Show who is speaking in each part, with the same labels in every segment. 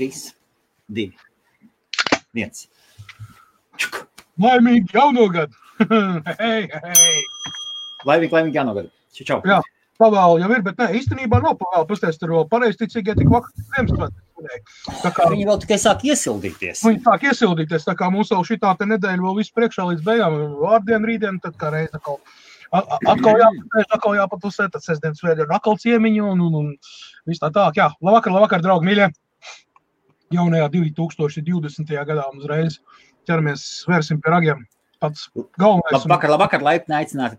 Speaker 1: 3, 2, 1.
Speaker 2: Laimīgi jaunogad! Hei!
Speaker 1: Laimīgi jaunogad! Čau!
Speaker 2: Jā, pavēlu jau ir, bet ne, īstenībā nav pavēlu. Pasties, tur vēl pareizticīgie tik vakar Ziemassvētku.
Speaker 1: Viņi vēl tikai sāk iesildīties.
Speaker 2: Viņi sāk iesildīties, tā kā mums vēl šitā te nedēļa vēl visu priekšā līdz beigām. Vārdien, rītdien, tad kā reiz atkal jāpatusē, tad sestdien, svētdien atkal ciemiņu un viss tā. Jā, labvakar, draugi, mīļie! Jaunajā 2020. gadā uzreiz ķeramies, svērsim pie ragiem. Pats galvenais.
Speaker 1: Labvakar, laipni aicināti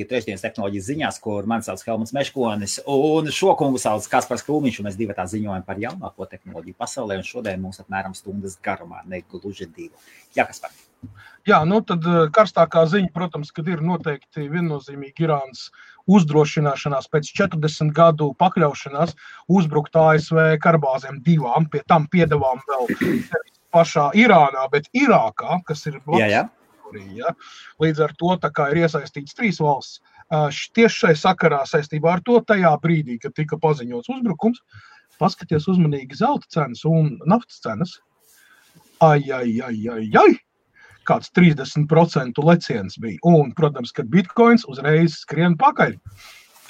Speaker 1: trešdienas tehnoloģijas ziņās, kur mani sauc Helmuts Meškonis, un šo kungu sauc Kaspars Krūmiņš, un mēs divatā ziņojam par jaunāko tehnoloģiju pasaulē, un šodien mums apmēram stundas garumā, ne gluži 2. Jā, Kaspar.
Speaker 2: Jā, tad karstākā ziņa, protams, kad ir noteikti viennozīmīgi Irānas uzdrošināšanās pēc 40 gadu pakļaušanās uzbrukt ASV karabāzēm 2, pie tam piedevām vēl pašā Irānā, bet Irākā, kas ir
Speaker 1: Jā.
Speaker 2: Ja? Līdz ar to tā kā ir iesaistīts 3 valsts. Tieši šai sakarā saistībā ar to tajā brīdī, kad tika paziņots uzbrukums, paskaties uzmanīgi zelta cenas un naftas cenas. Kāds 30% leciens bija. Un, protams, kad bitcoins uzreiz skrien pakaļ.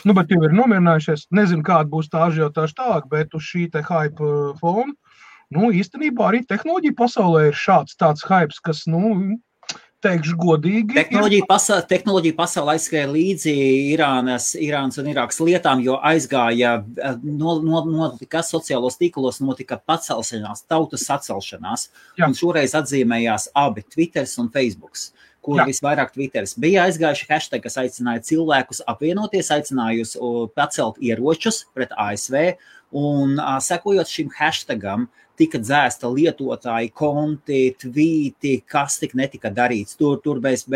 Speaker 2: Bet jau ir nomierinājušies. Nezinu, kāda būs tā ažiotāža tālāk, bet uz šī te hype fona, īstenībā arī tehnoloģija pasaulē ir tāds hypes, kas, teikšu godīgi.
Speaker 1: Tehnoloģija pasaulē aizskrēja līdzi Irānas un Irākas lietām, jo aizgāja notika sociālos tīklos, notika pacelšanās, tautas sacelšanās. Jā. Un šoreiz atzīmējās abi Twitters un Facebooks, kur visvairāk Twitteris bija aizgājuši hashtag, kas aicināja cilvēkus apvienoties, aicinājusi pacelt ieročus pret ASV, un sekojot šim hashtagam, tika dzēsta lietotāji, konti, tvīti, kas tik netika darīts. Tur bez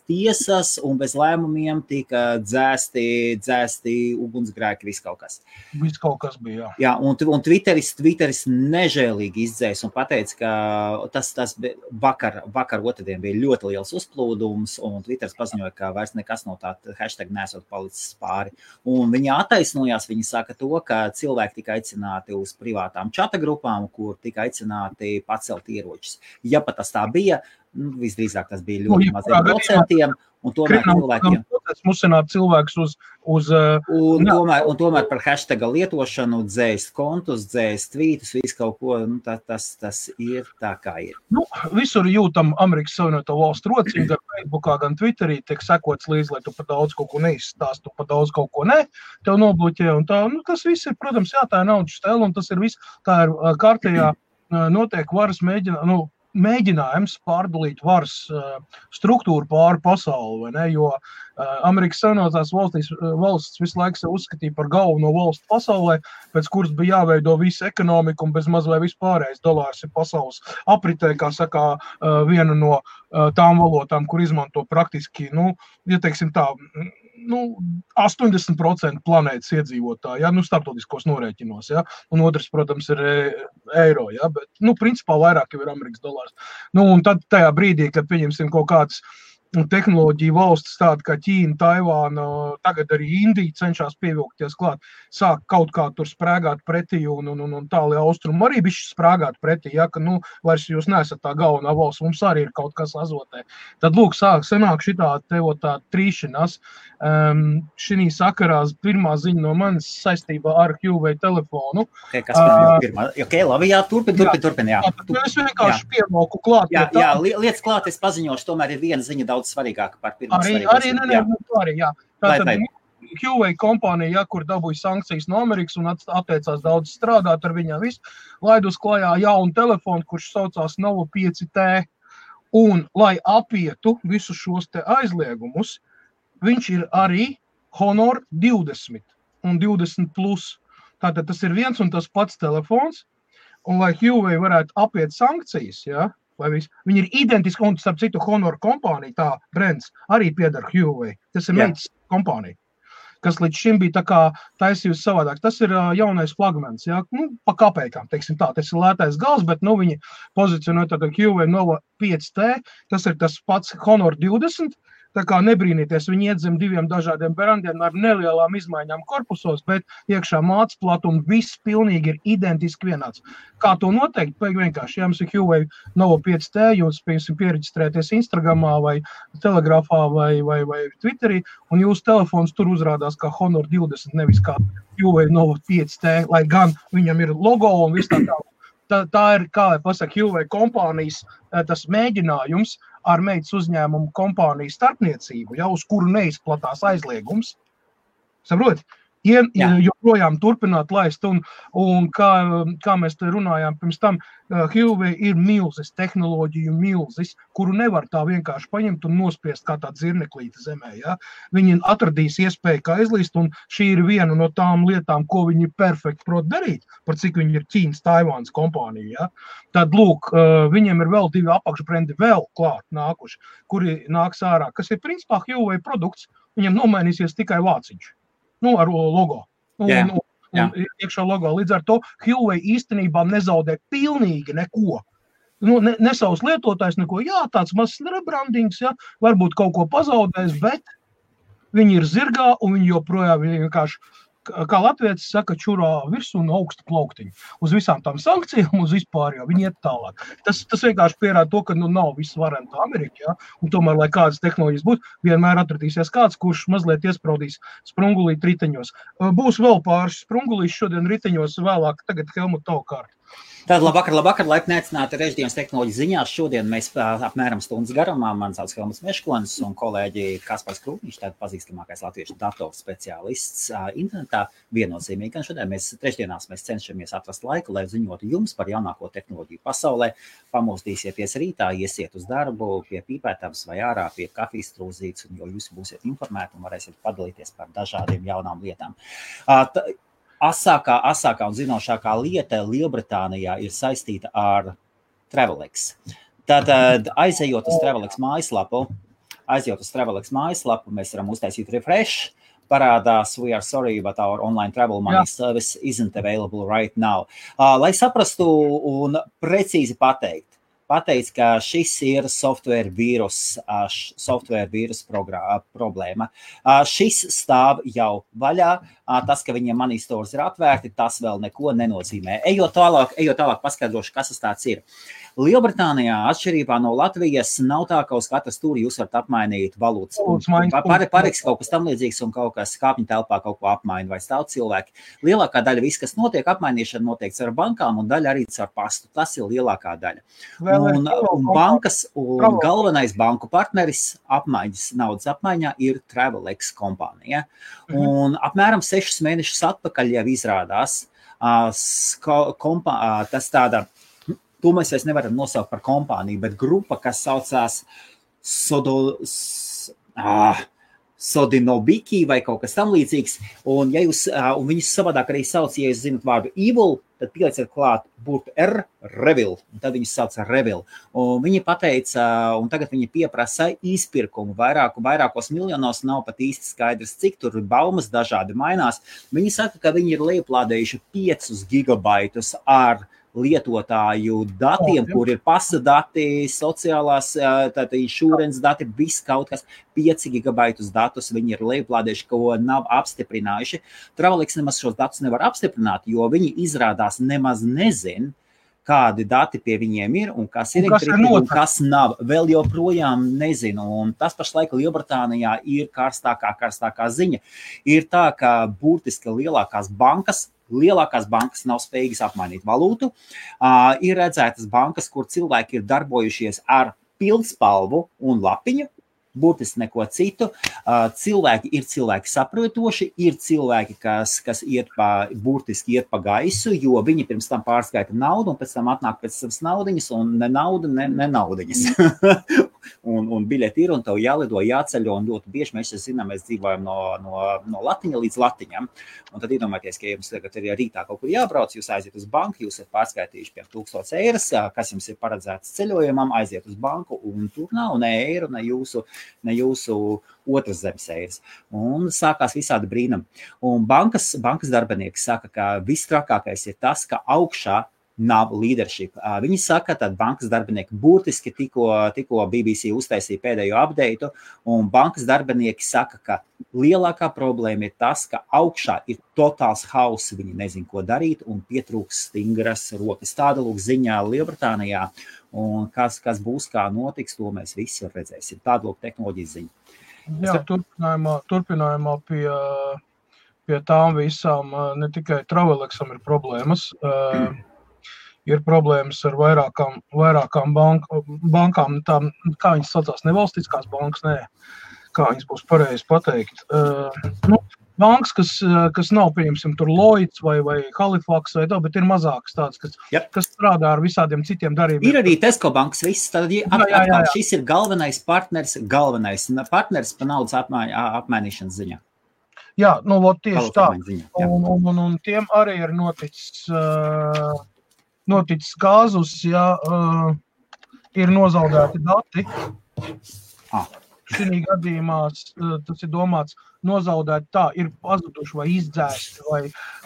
Speaker 1: tiesas un bez lēmumiem tika dzēsti ugunsgrēki, viss kaut kas.
Speaker 2: Viss kaut kas bija,
Speaker 1: jā. Un Twitteris nežēlīgi izdzēs un pateica, ka tas vakar otrdien bija ļoti liels uzplūdums, un Twitteris paziņoja, ka vairs nekas no tā hashtag nesot palicis pāri. Un viņi attaisnojās, viņi saka to, ka cilvēki tika aicināti uz privātām čata grupām, kur tika aicināti pacelt ieročus. Ja pat tas tā bija, visdrīzāk tas bija ļoti maziem procentiem, un tomēr cilvēkiem...
Speaker 2: Musināt cilvēkus
Speaker 1: Un tomēr par hashtaga lietošanu dzēst kontus, dzēst tvītus, visu kaut ko, tas ir tā kā ir.
Speaker 2: Visur jūtam Amerikas Savienoto Valstu rociņu, gan Facebookā, gan Twitterī tiek sekots līdz, lai tu pa daudz kaut ko neizstāst, tu pa daudz kaut ko ne, tev nobloķē, un tā, tas viss ir, protams, tā ir naudas stēla, un tas ir viss, tā ir kārtējā notiek varas mēģinājums pārdalīt varas struktūru pāri pasauli, vai ne, jo Amerikas Savienotās valsts visu laiku sev uzskatīja par galveno valstu pasaulē, pēc kuras bija jāveido visa ekonomika un bez maz vai vispārējais dolārs ir pasaules apritē, kā saka, viena no tām valotām, kur izmanto praktiski, ja teiksim tā, 80% planētas iedzīvotāji, starptautiskos norēķinos, un otrs, protams, ir eiro, bet, principā vairāk jau ir Amerikas dolārs. Un tad tajā brīdī, kad pieņemsim kaut kāds tehnoloģiju valstis tāda kā Ķīna, Taivāna, tagad arī Indija cenšas pievilkties klāt, sāk kaut kā tur sprēgāt pretī un tālie austrumi arī bišķi sprēgāt pretī, ka, vairs jūs neesat tā galvenā valsts, mums arī ir kaut kas azotē. Tad, lūk, sanāk šitā tā trīšanās. Šī sakarā pirmā ziņa no manis saistībā ar Huawei telefonu.
Speaker 1: Kas pirmā? Labi, jā, turpin, jā.
Speaker 2: Es vienkārši pievalku klāt.
Speaker 1: Jā, lietas klāt, es paziņošu, tomēr ir viena ziņa daudz svarīgāka par pirmo svarīgāku.
Speaker 2: Arī. Tātad Huawei kompānija, kur dabūja sankcijas no Amerikas un atteicās daudz strādāt ar viņām visu, laid uz klājā jaunu telefonu, kurš saucās Nova 5T. Un, lai apietu visus šos te aizliegumus, viņš ir arī Honor 20 un 20 plus. Tātad tas ir viens un tas pats telefons, un lai Huawei varētu apiet sankcijas, viņi ir identiski, un starp citu Honor kompānija, tā brands, arī piedar Huawei. Tas ir meitas kompānija, kas līdz šim bija tā kā taisījusi savādāk. Tas ir jaunais flagmans, pa kapēkām, teiksim tā. Tas ir lētais gals, bet viņi pozicionē tātad Huawei Nova 5T, tas ir tas pats Honor 20, Tā kā nebrīnīties, viņi iet zem 2 dažādiem brandiem ar nelielām izmaiņām korpusos, bet iekšā mātes platuma viss pilnīgi ir identiski vienāds. Kā to noteikt? Vienkārši, ja jums ir Huawei Nova 5T, jūs piereģistrēties Instagramā vai Telegrafā vai Twitterī, un jūsu telefons tur uzrādās kā Honor 20, nevis kā Huawei Nova 5T, lai gan viņam ir logo un viss tā. Tā ir, kā lai pasaka, Huawei kompānijas tas mēģinājums ar meitas uzņēmumu kompāniju starpniecību, uz kuru neizplatās aizliegums. Saproti? Joprojām turpināt laist, un kā mēs te runājām pirms tam, Huawei ir milzis, tehnoloģiju milzis, kuru nevar tā vienkārši paņemt un nospiest kā tādu zirneklīti zemē. Ja? Viņi atradīs iespēju, kā izlīst, un šī ir viena no tām lietām, ko viņi perfekti prot darīt, par cik viņi ir Ķīnas, Taivānas kompānija. Ja? Tad, lūk, viņiem ir vēl 2 apakšbrendi vēl klāt nākuši, kuri nāks ārā, kas ir principā Huawei produkts, viņam nomainīsies tikai vāciņš. Ar logo. Un iekšā logo. Līdz ar to Huawei īstenībā nezaudē pilnīgi neko. Ne savus lietotājs neko. Jā, tāds mazs rebrandings, varbūt kaut ko pazaudēs, bet viņi ir zirgā un viņi joprojām vienkārši, kā latvietis saka, čurā virsū un augsta plauktiņu. Uz visām tām sankcijām, uz vispār jau viņi iet tālāk. Tas vienkārši pierāda to, ka nav viss varenta Amerika, un tomēr, lai kādas tehnoloģijas būtu, vienmēr atradīsies kāds, kurš mazliet iespraudīs sprungulīt riteņos. Būs vēl pāris sprungulīs šodien riteņos vēlāk, tagad Helmut tavu kārtu.
Speaker 1: Tātad labvakar, laipni aicināti Režģienas tehnoloģiju ziņās. Šodien mēs apmēram stundas garumā, man sauc Helmuts Meškonis un kolēģi Kaspars Krūtniņš, tātad pazīstamākais latviešu datoru speciālists internetā. Viennozīmīgi, gan šodien trešdienās mēs cenšamies atrast laiku, lai ziņotu jums par jaunāko tehnoloģiju pasaulē. Pamostīsieties rītā, iesiet uz darbu pie pīpētavas vai ārā pie kafijas trūzītes, un jo jūs būsiet informēti un varēsiet padalīties par dažādiem jaunām lietām. Asākā un zinošākā lieta Lielbritānijā ir saistīta ar Travelex. Tātad, aizejot uz Travelex mājaslapu, mēs varam uztaisīt refresh, parādās "We are sorry, but our online travel money service isn't available right now." Lai saprastu un precīzi pateikt, ka šis ir software vīrus problēma. Šis stāv jau vaļā. Tas, ka viņiem money stores ir atvērti, tas vēl neko nenozīmē. Ejot tālāk paskaidrošu, kas tas tāds ir. Lielbritānijā, atšķirībā no Latvijas, nav tā, ka uz katru stūri jūs varat apmainīt valūtas. Pareks kaut kas tam līdzīgs un kaut kas kāpņu telpā kaut ko apmaina vai stāv cilvēki. Lielākā daļa viss, kas notiek, apmainīšana notiek ar bankām un daļa arī ar pastu. Tas ir lielākā daļa. Un bankas un galvenais banku partneris naudas apmaiņā ir Travelex kompānija. Un apmēram 6 mēnešus atpakaļ jau izrādās tas tāda. To mēs vairs nevaram nosaukt par kompāniju, bet grupa, kas saucās Sodinobiki vai kaut kas tam līdzīgs. Un viņus savādāk arī sauc, ja jūs zinat vārdu evil, tad pielieciet klāt burtu Revil, un tad viņus sauc Revil. Un viņi pateica, un tagad viņi pieprasa izpirkumu vairākos miljonos, nav pat īsti skaidrs, cik tur baumas dažādi mainās. Viņi saka, ka viņi ir lejuplādējuši 5 gigabaitus ar lietotāju datiem, kur ir pasa dati, sociālās, insurance dati, viss kaut kas, 5 gigabaitus datus viņi ir lejuplādējuši, ko nav apstiprinājuši. Travelex nemaz šos datus nevar apstiprināt, jo viņi izrādās nemaz nezin, kādi dati pie viņiem ir un kas ir un kas nav. Vēl joprojām nezinu. Un tas pašlaik Lielbritānijā ir karstākā ziņa. Ir tā, ka burtiski lielākās bankas nav spējīgas apmainīt valūtu. Ir redzētas bankas, kur cilvēki ir darbojušies ar pildspalvu un lapiņu, burtiski neko citu. Cilvēki saprotoši, ir cilvēki, kas burtiski iet pa gaisu, jo viņi pirms tam pārskaita naudu un pēc tam atnāk pēc savas naudiņas un ne nauda, ne naudiņas. un biļeti ir un tev jālido, jāceļo un ļoti bieži mēs zinām, mēs dzīvojam no latiņa līdz latiņam. Un tad iedomājieties, ka jums tagad ir rītā kaut kur jābrauc, jūs aiziet uz banku, jūs esat pārskaitījuši pie 1000 eiras, kas jums ir paredzēts ceļojumam, aiziet uz banku un tur nav ne eiro, ne jūsu otras zemes eiras. Un sākās visādi brīnumi. Un bankas darbinieki saka, ka viss trakākais ir tas, ka augšā nav leadership. Viņi saka, ka bankas darbinieki burtiski tikko BBC uztaisīja pēdējo update, un bankas darbinieki saka, ka lielākā problēma ir tas, ka augšā ir totāls hauss, viņi nezin, ko darīt, un pietrūks stingras rokas. Tāda lūk ziņā Lielbritānijā, un kas būs, kā notiks, to mēs visi redzēsim. Tāda lūk tehnoloģijas ziņa.
Speaker 2: Jā, turpinājumā pie tām visām ne tikai Travelexam ir problēmas, ir problēmas ar vairākām bankām, tām, kā viņas saucās, nevalstiskās bankas, kā viņas būs pareizi pateikt. Bankas, kas nav, pieņemsim, tur Lloyds vai Halifax vai tā, bet ir mazākas tādas, kas strādā ar visādiem citiem darījumiem.
Speaker 1: Ir arī Tesco bankas, viss, tad atkal šis ir galvenais partners pa naudas apmainīšanas ziņā.
Speaker 2: Jā, tieši tā. Un tiem arī ir noticis kāzus, ir nozaudēti dati. Šī gadījumā tas ir domāts nozaudēt tā, ir pazuduši vai izdzēsti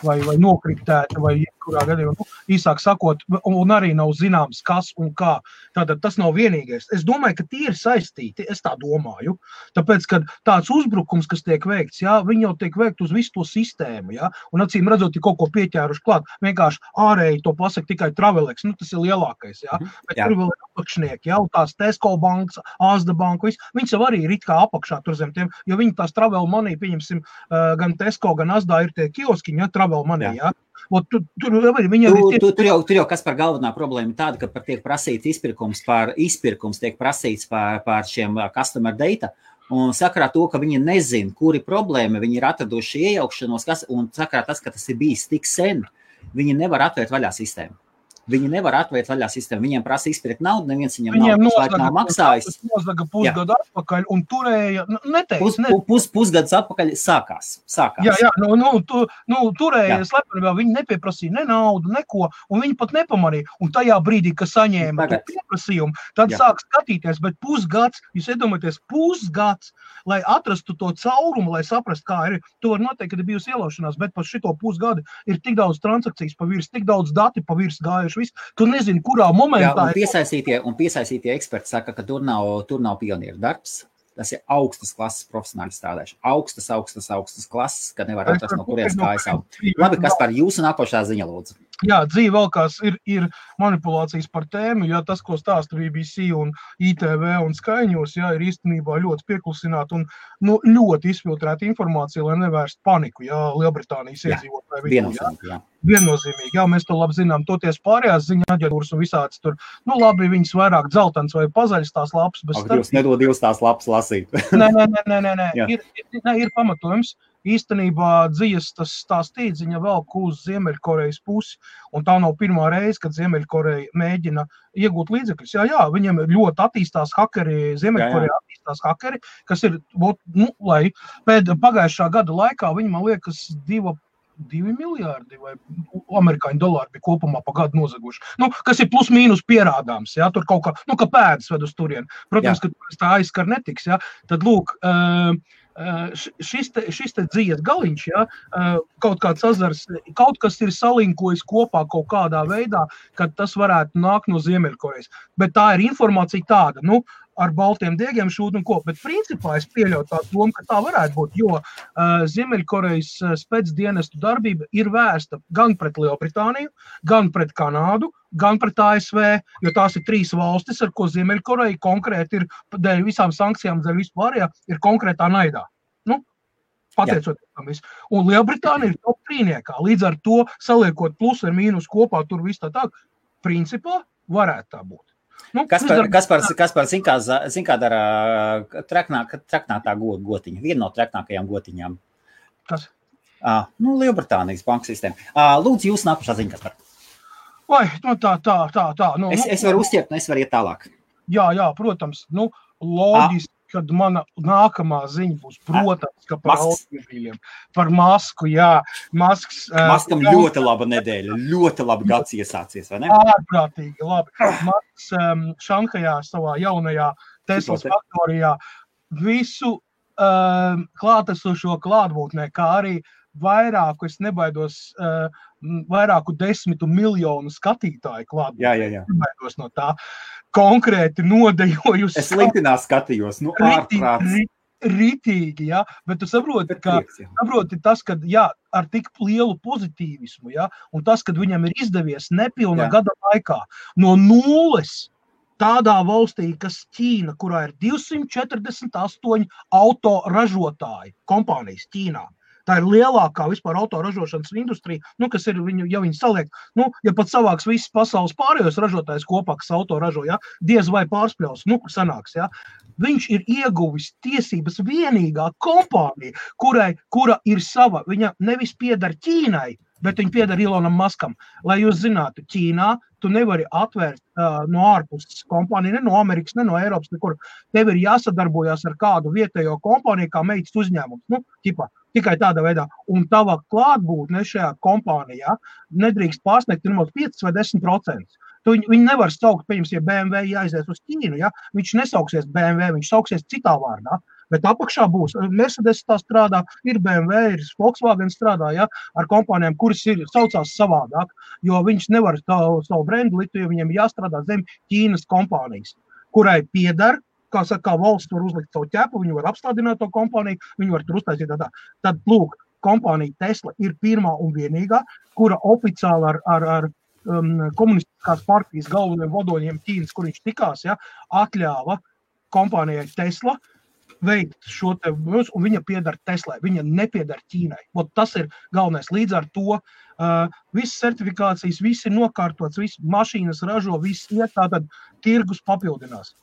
Speaker 2: vai nokriptēti vai jebkurā gadījumā. Īsāk sakot, un arī nav zināms, kas un kā. Tātad tas nav vienīgais. Es domāju, ka tie ir saistīti, es tā domāju. Tāpēc, kad tāds uzbrukums, kas tiek veikts, viņi jau tiek veikt uz visu to sistēmu, un acīm redzot, ir kaut ko pieķēruši klāt. Vienkārši ārēji to pasaka tikai Travelex, tas ir lielākais, Bet tur vēl ir apakšnieki, tās Tesco bankas, Asda banka, viņas jau arī ir it kā apakšā tur zem tiem, jo viņi tās Travel Money, pieņemsim, gan Tesco, gan Asdā ir tie kioskiņi, Travel Money, Tur
Speaker 1: jau kas par galvenā problēma tāda, ka tiek prasīts izpirkums tiek prasīts par šiem customer data, un sakarā to, ka viņi nezin, kuri problēma, viņi ir atraduši iejaukšanos, un sakarā tas, ka tas ir bijis tik sen, viņi nevar atvērt vaļā sistēmu. Viņi nevar atvērt vaļā sistēmu. Viņiem prasa izpirkt naudu, neviens viņiem nav maksājis.
Speaker 2: Nozaga pusgadu atpakaļ un turēja,
Speaker 1: Pusgads atpakaļ sākās.
Speaker 2: Jā, turēja slepenībā, viņi nepieprasīja ne naudu, neko, un viņi pat nepamanīja. Un tajā brīdī, kad saņēma pieprasījumu, tad sāk skatīties, bet pusgads, jūs iedomājaties, pusgads, lai atrastu to caurumu, lai saprastu, kā ir. Tu var noteikt, kad ir bijusi ielaušanās, bet par šito pusgadu ir tik daudz transakcijas pa virs, tik daudz dati pa virs gājuši. Tu nezini, kurā momentā...
Speaker 1: Un piesaistītie eksperti saka, ka tur nav pionieru darbs. Tas ir augstas klases profesionāli strādājuši. Augstas klases, kad nevar atrast no kurienes kājas aug. Labi, kas par jūsu nākošā ziņa, lūdzu?
Speaker 2: Jā, dzīve vēl kās ir manipulācijas par tēmu, tas, ko stāsta BBC un ITV un Sky News, ir īstenībā ļoti pieklusināta un ļoti izfiltrēta informācija, lai nevērst paniku, Lielbritānijas iedzīvotāji. Viennozīmīgi, mēs to labi zinām, toties pārējās ziņa aģentūras un visāds tur, labi, viņas vairāk dzeltens vai pazaļas tās lapas, bet
Speaker 1: Jūs nedod divas tās lapas lasīt.
Speaker 2: Nē, ir pamatojums. Īstenībā dzīves tā stīdziņa velk uz Ziemeļkorejas pusi, un tā nav pirmā reize, kad Ziemeļkoreja mēģina iegūt līdzekļus. Jā, viņiem ļoti attīstās hakeri, Ziemeļkoreja attīstās hakeri, kas ir, lai pagājušā gada laikā viņi, man liekas, 2 miljārdi vai amerikāņu dolāri bija kopumā pa gadu nozaguši. Kas ir plus mīnus pierādāms, tur kaut kā, ka pēdas ved uz turieni. Protams, ka tā aizskar netiks, Tad, lūk, šis te dzīves galiņš, kaut kāds azars, kaut kas ir salinkojis kopā kaut kādā veidā, kad tas varētu nākt no Ziemeļkorejas. Bet tā ir informācija tāda, ar baltiem diegiem šūt un ko, bet principā es pieļauju tā domu, ka tā varētu būt, jo Ziemeļkorejas spēcdienestu darbība ir vērsta gan pret Lielbritāniju, gan pret Kanādu, gan pret ASV, jo tās ir 3 valstis, ar ko Ziemeļkoreja konkrēti ir, dēļ visām sankcijām, dēļ vispārējā, ir konkrētā naidā. Pateicoties tam visu. Un Lielbritānija ir top 3-niekā, līdz ar to saliekot plus ar mīnus kopā, tur viss tā, principā varētu tā būt.
Speaker 1: Kas par zin kā dara traknātā gotiņa, viena no traknākajām gotiņām?
Speaker 2: Kas?
Speaker 1: Lielbritānijas banku sistēma. Lūdzu, jūs nākušā ziņa, kas par?
Speaker 2: Vai, tā.
Speaker 1: Es varu uzķert, es varu iet tālāk.
Speaker 2: Jā, protams, loģiski, kad mana nākamā ziņa būs, protams, ka par automobīļiem, par masku,
Speaker 1: Maskam ļoti laba nedēļa, ļoti labi gads iesācies, vai ne?
Speaker 2: Ārprātīgi, labi. Masks Šanhajā savā jaunajā Teslas faktorijā visu klātesošo klātbūtnē, kā arī vairāku, es nebaidos vairāku 10 miljonu skatītāju klāt.
Speaker 1: Jā.
Speaker 2: No tā konkrēti nodejojusi.
Speaker 1: Es LinkedInā skatījos, ārprāts.
Speaker 2: Ritīgi, ja, bet tu saproti, saproti tas, ka, jā, ar tik lielu pozitīvismu, ja, un tas, kad viņam ir izdevies nepilna gada laikā no nulles tādā valstī, kas Ķīna, kurā ir 248 autoražotāji kompānijas Ķīnā. Tā ir lielākā vispār autoražošanas industrija, kas ir viņu, ja viņi saliek, ja pat savāks visas pasaules pārējos ražotājs kopā, kas autoražo, ja, diez vai pārspļaus, sanāks, ja. Viņš ir ieguvis tiesības vienīgā kompānija, kura ir sava, viņa nevis pieder Ķīnai, bet viņa pieder Elonam Muskam. Lai jūs zinātu, Ķīnā tu nevari atvērt no ārpuses kompāniju, ne no Amerikas, ne no Eiropas, nekur. Tev ir jāsadarbojās ar kādu vietējo kompāniju, kā meitas uzņēmums, tikai tādā veidā. Un tava klātbūtne šajā kompānijā nedrīkst pārsniegt 5 vai 10%. Viņi nevar saukt, ja BMW jāizies uz Ķīnu, ja? Viņš nesauksies BMW, viņš sauksies citā vārdā. Bet apakšā būs, Mercedes tā strādā, ir BMW, ir Volkswagen strādā, ja, ar kompānijām, kuras saucās savādāk, jo viņš nevar savu brendu likt, jo viņiem jāstrādā zem Ķīnas kompānijas, kurai pieder, kā valsts var uzlikt savu ķepu, viņi var apstādināt to kompāniju, viņi var tur uztaisīt tā. Tad, lūk, kompānija Tesla ir pirmā un vienīgā, kura oficiāli ar komunistiskās partijas galveniem vadoņiem Ķīnas, kur viņš tikās, ja, atļāva kompānijai Tesla veikt šo te, un viņa pieder Teslai, viņa nepieder Ķīnai. Tas ir galvenais. Līdz ar to visas certifikācijas, viss ir nokārtots, viss mašīnas ražo, viss iet, tātad tirgus papildinās.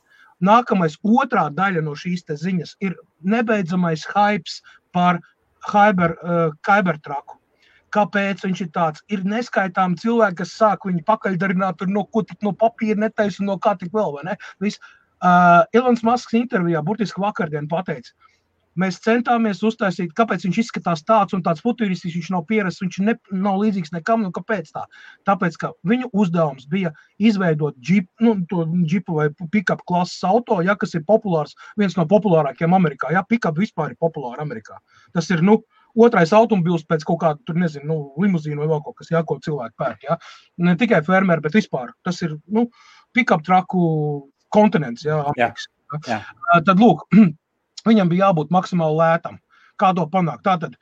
Speaker 2: Nākamais, otrā daļa no šīs te ziņas ir nebeidzamais hypes par Cybertrucku. Kāpēc viņš ir tāds? Ir neskaitām cilvēki, kas sāk viņu pakaļdarināt, ko tik no papīra netaisa un no kā tik vēl, vai ne? Viss. Elons Musks intervijā burtiski vakardien pateica, mēs centāmies uztaisīt, kāpēc viņš izskatās tāds un tāds futuristisks, viņš nav pierasts, viņš nav līdzīgs nekam, kāpēc tā? Tāpēc, ka viņu uzdevums bija izveidot džipu vai pick-up klases auto, ja, kas ir populārs, viens no populārākiem Amerikā, ja, pick-up vispār ir populāri Amerikā. Tas ir, otrais automobils pēc kaut kāda, tur nezinu, limuzīnu vai vēl kaut kas, ja, ko cilvēki pērk, ja. Ne tikai fermeri, bet vispār. Tas ir, pick-up trucku kontinents, Amerikas.
Speaker 1: Jā.
Speaker 2: Tad, lūk, viņam bija jābūt maksimāli lētam. Kā to panākt? Tātad,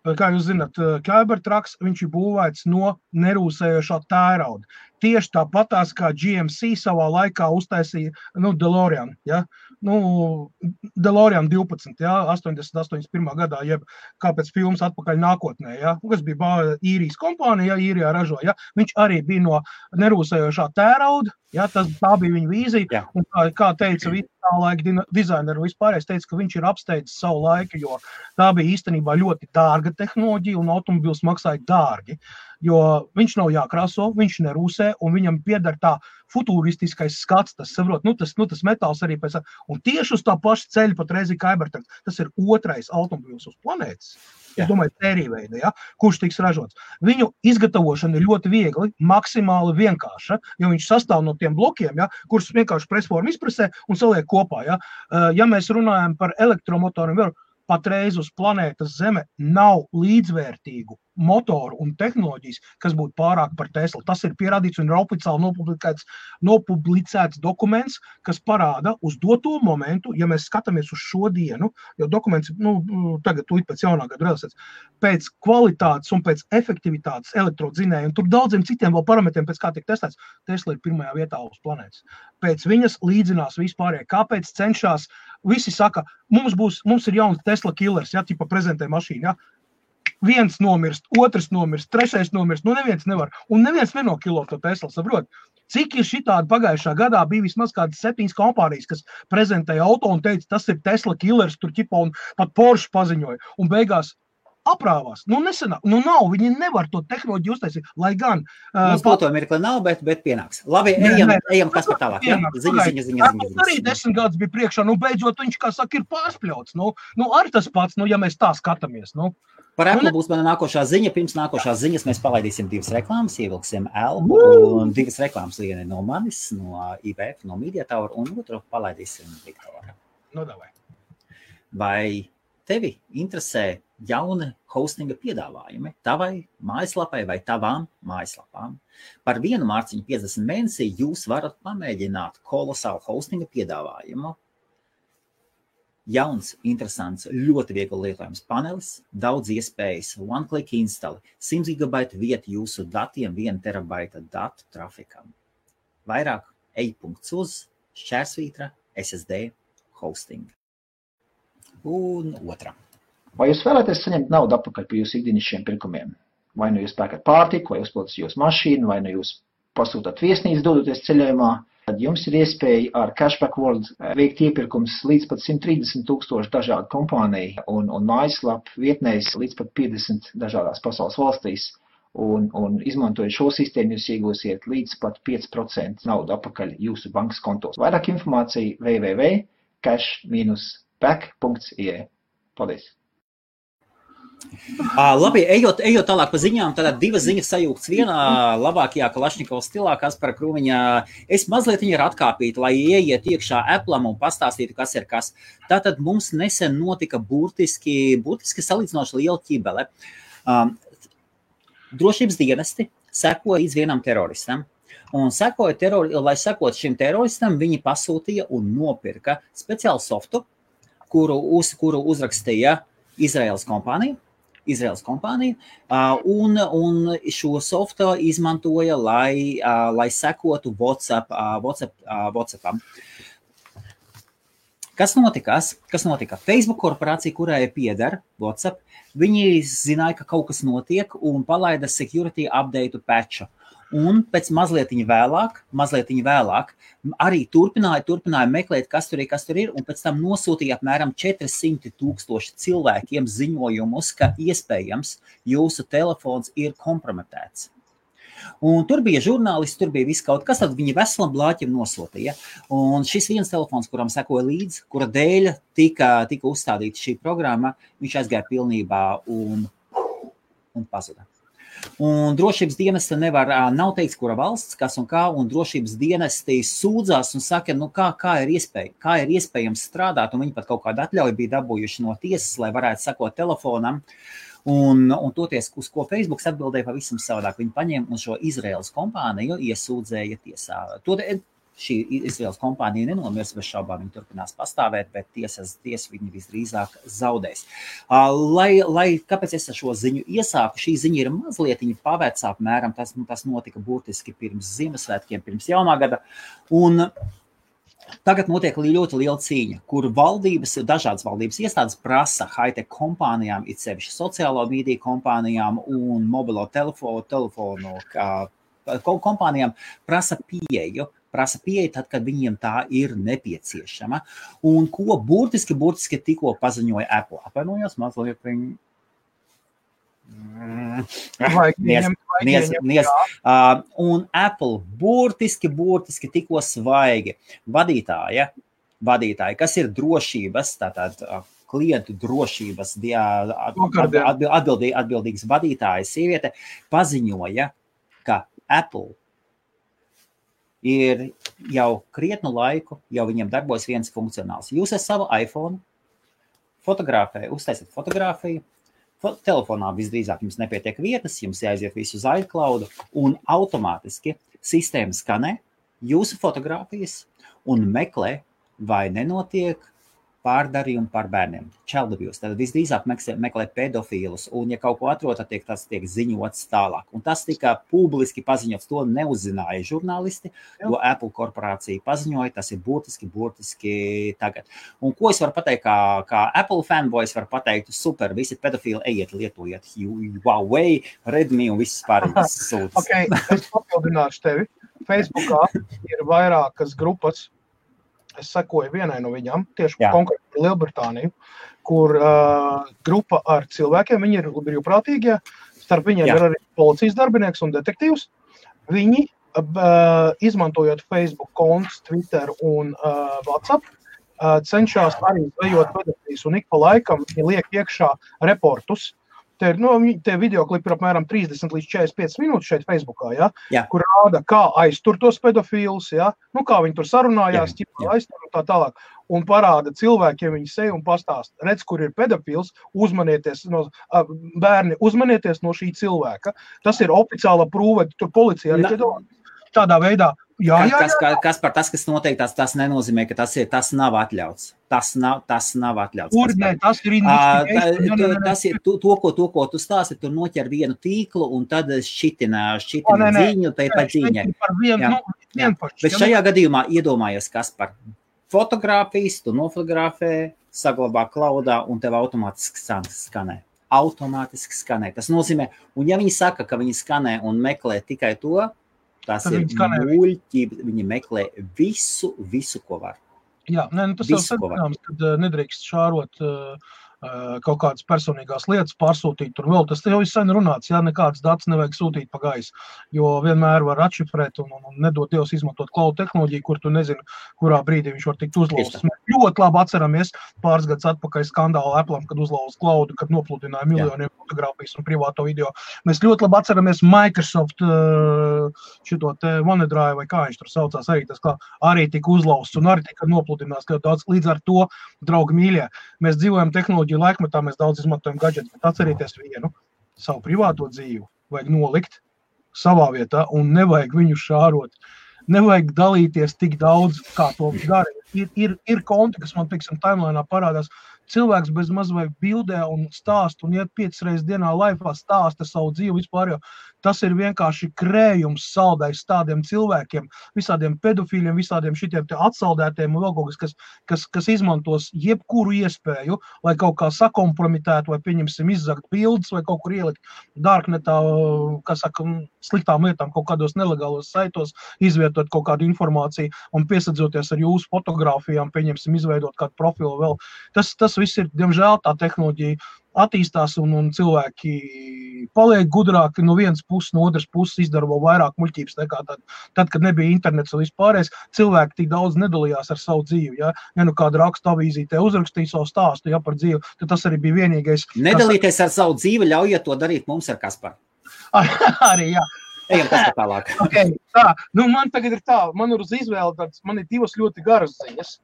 Speaker 2: kā jūs zināt, Cybertrucks, viņš ir būvēts no nerūsējošā tērauda. Tieši tāpatās, kā GMC savā laikā uztaisīja, DeLorean, ja? DeLorean 12, ja? 81. gadā, jeb kāpēc filmas atpakaļ nākotnē, ja? Kas bija īrijas kompānija, ja? Īrijā ražo, ja? Viņš arī bija no nerūsējošā tērauda, ja? Tā bija viņa vīzija, un kā teica visi tā laika dizaineri un vispārējais teica, ka viņš ir apsteidzis savu laiku, jo tā bija īstenībā ļoti dārga tehnoloģija un automobils maksāja dārgi. Jo viņš nav jākrāso, viņš nerūsē, un viņam pieder tā futuristiskais skats, tas saprot, tas metāls arī pēc, un tieši uz tā paša ceļa pat reizi Cybertruck, tas ir otrais automobils uz planētas, es domāju, sērīveida, ja, kurš tiks ražots. Viņu izgatavošana ir ļoti viegli, maksimāli vienkārša, jo viņš sastāv no tiem blokiem, ja, kurus vienkārši presforma izpresē un saliek kopā, ja. Ja mēs runājam par elektromotoriem, patreiz uz planētas Zeme nav līdzvērtīgu motoru un tehnoloģijas, kas būtu pārāk par Tesla. Tas ir pierādīts un ir oficiāli nopublicēts dokuments, kas parāda uz doto momentu, ja mēs skatāmies uz šo dienu, jo dokuments, tagad tūlīt pēc jaunā gada realizēts, pēc kvalitātes un pēc efektivitātes elektrodzinēja, un tur daudziem citiem vēl parametriem, pēc kā tiek testēts, Tesla ir pirmajā vietā uz planētas. Pēc viņas līdzinās vispārējie. Kāpēc cenšās? Visi saka, mums ir jauns Tesla killers, ja, tipa prezentē mašīnu, ja. Viens nomirst, otrs nomirst, trešais nomirst, neviens nevar. Un neviens nenokilo to Tesla, saprot. Cik ir šitādi pagājušā gadā bija vismaz kādas 7 kompānijas, kas prezentēja auto un teica, tas ir Tesla killers, tur ķipa un pat Porsche paziņoja. Un beigās aprāvās. Nesenāk. Nav, viņi nevar to tehnoloģiju uztaisīt, lai gan...
Speaker 1: Mums to mirkli nav, bet pienāks. Labi, ejam kas par tālāk. Ziņa.
Speaker 2: Arī 10 gadus bija priekšā, beidzot viņš, kā saka, ir pārspļauts. Arī tas pats, ja mēs tā skatāmies.
Speaker 1: Par Apple būs mana nākošā ziņa. Pirms nākošās ziņas mēs palaidīsim 2 reklāmas, ievilksim Elbu un 2 reklāmas, viena no manis, no IBF, no Media Tower, un otru palaidīsim Viktoru.
Speaker 2: Davai.
Speaker 1: Vai tevi interesē jauni hostinga piedāvājumi tavai mājaslapai vai tavām mājaslapām. Par 1 mārciņu 50 mēnesī jūs varat pamēģināt kolosālu hostinga piedāvājumu. Jauns, interesants, ļoti viegli lietojams panelis, daudz iespējas, one-click install, 100 GB vieta jūsu datiem, 1 terabaita datu trafikam. Vairāk ej.uz /SSD hosting. Un otra.
Speaker 3: Vai jūs vēlaties saņemt naudu atpakaļ par jūsu ikdienišķiem pirkumiem? Vai nu jūs pērkat pārtiku, vai uzpildat jūsu mašīnu, vai nu jūs pasūtat viesnīcu dodoties ceļojumā, tad jums ir iespēja ar Cashback World veikt iepirkums līdz pat 130,000 dažādu kompāniju un mājaslapu vietnēs līdz pat 50 dažādās pasaules valstīs. Un izmantojot šo sistēmu, jūs iegūsiet līdz pat 5% naudu atpakaļ jūsu bankas kontos. Vairāk informācija www.cash-back.ie. Paldies!
Speaker 1: Labi, ejot tālāk pa ziņām, tad 2 ziņas sajūgts vienā labākajā Kalašņikova stilā, Kaspara Krūmiņa. Es mazliet viņu ir atkāpīt, lai ieiet iekšā Apple'am un pastāstītu, kas ir kas. Tātad mums nesen notika burtiski salīdzinoši liela ķibele. Drošības dienesti sekoja līdz vienam teroristam. Un lai sekot šim teroristam, viņi pasūtīja un nopirka speciālu softu, kuru uzrakstīja Izraēlas kompānija, un šo softu izmantoja, lai sekotu WhatsAppam. Kas notika? Facebook korporācija, kurai pieder WhatsApp, viņi zināja, ka kaut kas notiek un palaida security update patchu. Un pēc mazliet vēlāk arī turpināja meklēt, kas tur ir, un pēc tam nosūtīja apmēram 400,000 cilvēkiem ziņojumus, ka iespējams jūsu telefons ir kompromitēts. Un tur bija žurnālisti, tur bija viss kaut kas, tad viņi veselam blāķim nosūtīja. Un šis viens telefons, kuram sekoja līdzi, kura dēļ tika uzstādīta šī programma, viņš aizgāja pilnībā un pazuda. Un drošības dienesti nav teikts, kura valsts, kas un kā, un drošības dienesti sūdzās un saka, kā ir iespējams strādāt, un viņi pat kaut kādu atļauju bija dabūjuši no tiesas, lai varētu sekot telefonam, un toties, uz ko Facebooks atbildēja pavisam savādāk. Viņi paņēma un šo Izraēlas kompāniju iesūdzēja tiesā. Šī Izraēlas kompānija nenomirs bez šaubām, viņi turpinās pastāvēt, bet tiesa viņi visdrīzāk zaudēs. Kāpēc es šo ziņu iesāku? Šī ziņa ir mazliet pavērts apmēram, tas notika burtiski pirms Ziemassvētkiem, pirms jaunā gada, un tagad notiek ļoti liela cīņa, kur dažādas valdības iestādes prasa high-tech kompānijām, it sevišķi sociālo mediju kompānijām un mobilo telefonu kompānijām prasa pieeju tad, kad viņiem tā ir nepieciešama. Un ko burtiski tikko paziņoja Apple. Apvainojos mazliet viņi. Un Apple burtiski tikko svaigi vadītāji, kas ir drošības, tātad klientu drošības atbildīgas vadītājas sieviete, paziņoja, ka Apple ir jau krietnu laiku, jau viņiem darbojas viens funkcionāls. Jūs ar savu iPhone uztaisat fotogrāfiju, telefonā visdrīzāk jums nepietiek vietas, jums jāaiziet visu uz iCloud, un automātiski sistēma skanē jūsu fotogrāfijas un meklē, vai nenotiek pārdarījumi par bērniem. Child abuse. Tad visdrīzāk meklē pedofīlus, un ja kaut ko atrod, tad tas tiek ziņots tālāk. Un tas tika publiski paziņots, to neuzzināja žurnālisti, to Apple korporācija paziņoja, tas ir burtiski tagad. Un ko es varu pateikt, kā Apple fanboys var pateikt, super, visi pedofīli, ejiet, lietojiet Huawei, Redmi un visas pārējās sūtas.
Speaker 2: Ok, es papildināšu tevi. Facebookā ir vairākas grupas. Es sekoju vienai no viņām, tieši konkrēti Lielbritāniju, kur grupa ar cilvēkiem, viņi ir brīvprātīgie, starp viņiem ir arī policijas darbinieks un detektīvs. Viņi, izmantojot Facebook kontus, Twitter un WhatsApp, cenšas arī zvejot pedofīlus un ik pa laikam viņi liek iekšā reportus. Te videoklipi ir apmēram 30 līdz 45 minūtes šeit Facebookā,
Speaker 1: Jā.
Speaker 2: kur rāda, kā aiztur tos pedofīlus, kā viņi tur sarunājās, aiztur un tā tālāk. Un parāda cilvēkiem viņi seju un pastāst. Redz, kur ir pedofils, bērni, uzmanieties no šī cilvēka. Tas ir oficiāla prūve, tur policija arī tādā veidā.
Speaker 1: Kas par tas, kas noteikti tas nenozīmē, ka tas nav atļauts. Tas nav atļauts.
Speaker 2: Kur ne, tas ir
Speaker 1: to, ko tu stāsti, tur noķer vienu tīklu un tad šitina ziņu, pa ziņai. Bet šajā gadījumā iedomājies, kas par fotogrāfijas, tu nofotografē, saglabā klaudā un tev automātiski skanē. Automātiski skanē. Tas nozīmē, un ja viņi saka, ka viņi skanē un meklē tikai to, tas ir muļķība, viņi meklē visu, ko var.
Speaker 2: Jā, tas jau saprināms, kad nedrīkst šārot kaut kādas personīgās lietas, pārsūtīt tur vēl. Tas jau ir sen runāts, nekādas datus nevajag sūtīt pa gaisu, jo vienmēr var atšifrēt un nedot Dievs izmantot cloud tehnoloģiju, kur tu nezini, kurā brīdī viņš var tikt uzlauzts. Mēs ļoti labi atceramies pāris gadus atpakaļ skandālu Apple'am, kad uzlauz cloudu, kad nopludināja miljoniem fotogrāfijas un privāto video. Mēs ļoti labi atceramies Microsoft šito te OneDrive vai kā viņš tur saucās, arī tika uzlauzts un arī tika nopludināts ļoti daudz. Līdz ar to, draugi mīļie, mēs dzīvojam tehnoloģiju laikmetā, mēs daudz izmantojam gadžetus, bet atcerieties vienu, savu privāto dzīvi vajag nolikt savā vietā un nevajag viņu šārot. Nevajag dalīties tik daudz, kā to dara. Ir konti, kas man, teiksim, timelainā parādās. Cilvēks bez maz vai bildē un stāst un iet 5 reizes dienā laifā stāsta savu dzīvi vispār, jo tas ir vienkārši krējums saldais tādiem cilvēkiem, visādiem pedofīļiem, visādiem šitiem te atsaldētiem un vēl kaut kas izmantos jebkuru iespēju, lai kaut kā sakompromitētu vai pieņemsim izzakt bildes vai kaut kur ielikt darknetā, sliktām lietām kaut kādos nelegālos saitos, izvietot kaut kādu informāciju un piesadzoties ar jūsu fotogrāfijām, pieņemsim izveidot kādu profilu vēl. Tas viss ir, diemžēl, tā tehnoloģija attīstās un cilvēki paliek gudrāki no vienas puses, no otras puses izdara vēl vairāk muļķības nekā tad, kad nebija internets un vispārējais. Cilvēki tik daudz nedalījās ar savu dzīvi. Ja kāda raksta avīzītē uzrakstīja savu stāstu par dzīvi, tad tas arī bija vienīgais.
Speaker 1: Nedalīties ar savu dzīvi, ļaujiet to darīt mums ar Kasparu.
Speaker 2: Arī, jā.
Speaker 1: Ejam Kaspar tālāk.
Speaker 2: Man tagad ir man ir uz izvēli, man ir 2 ļoti garas ziņas.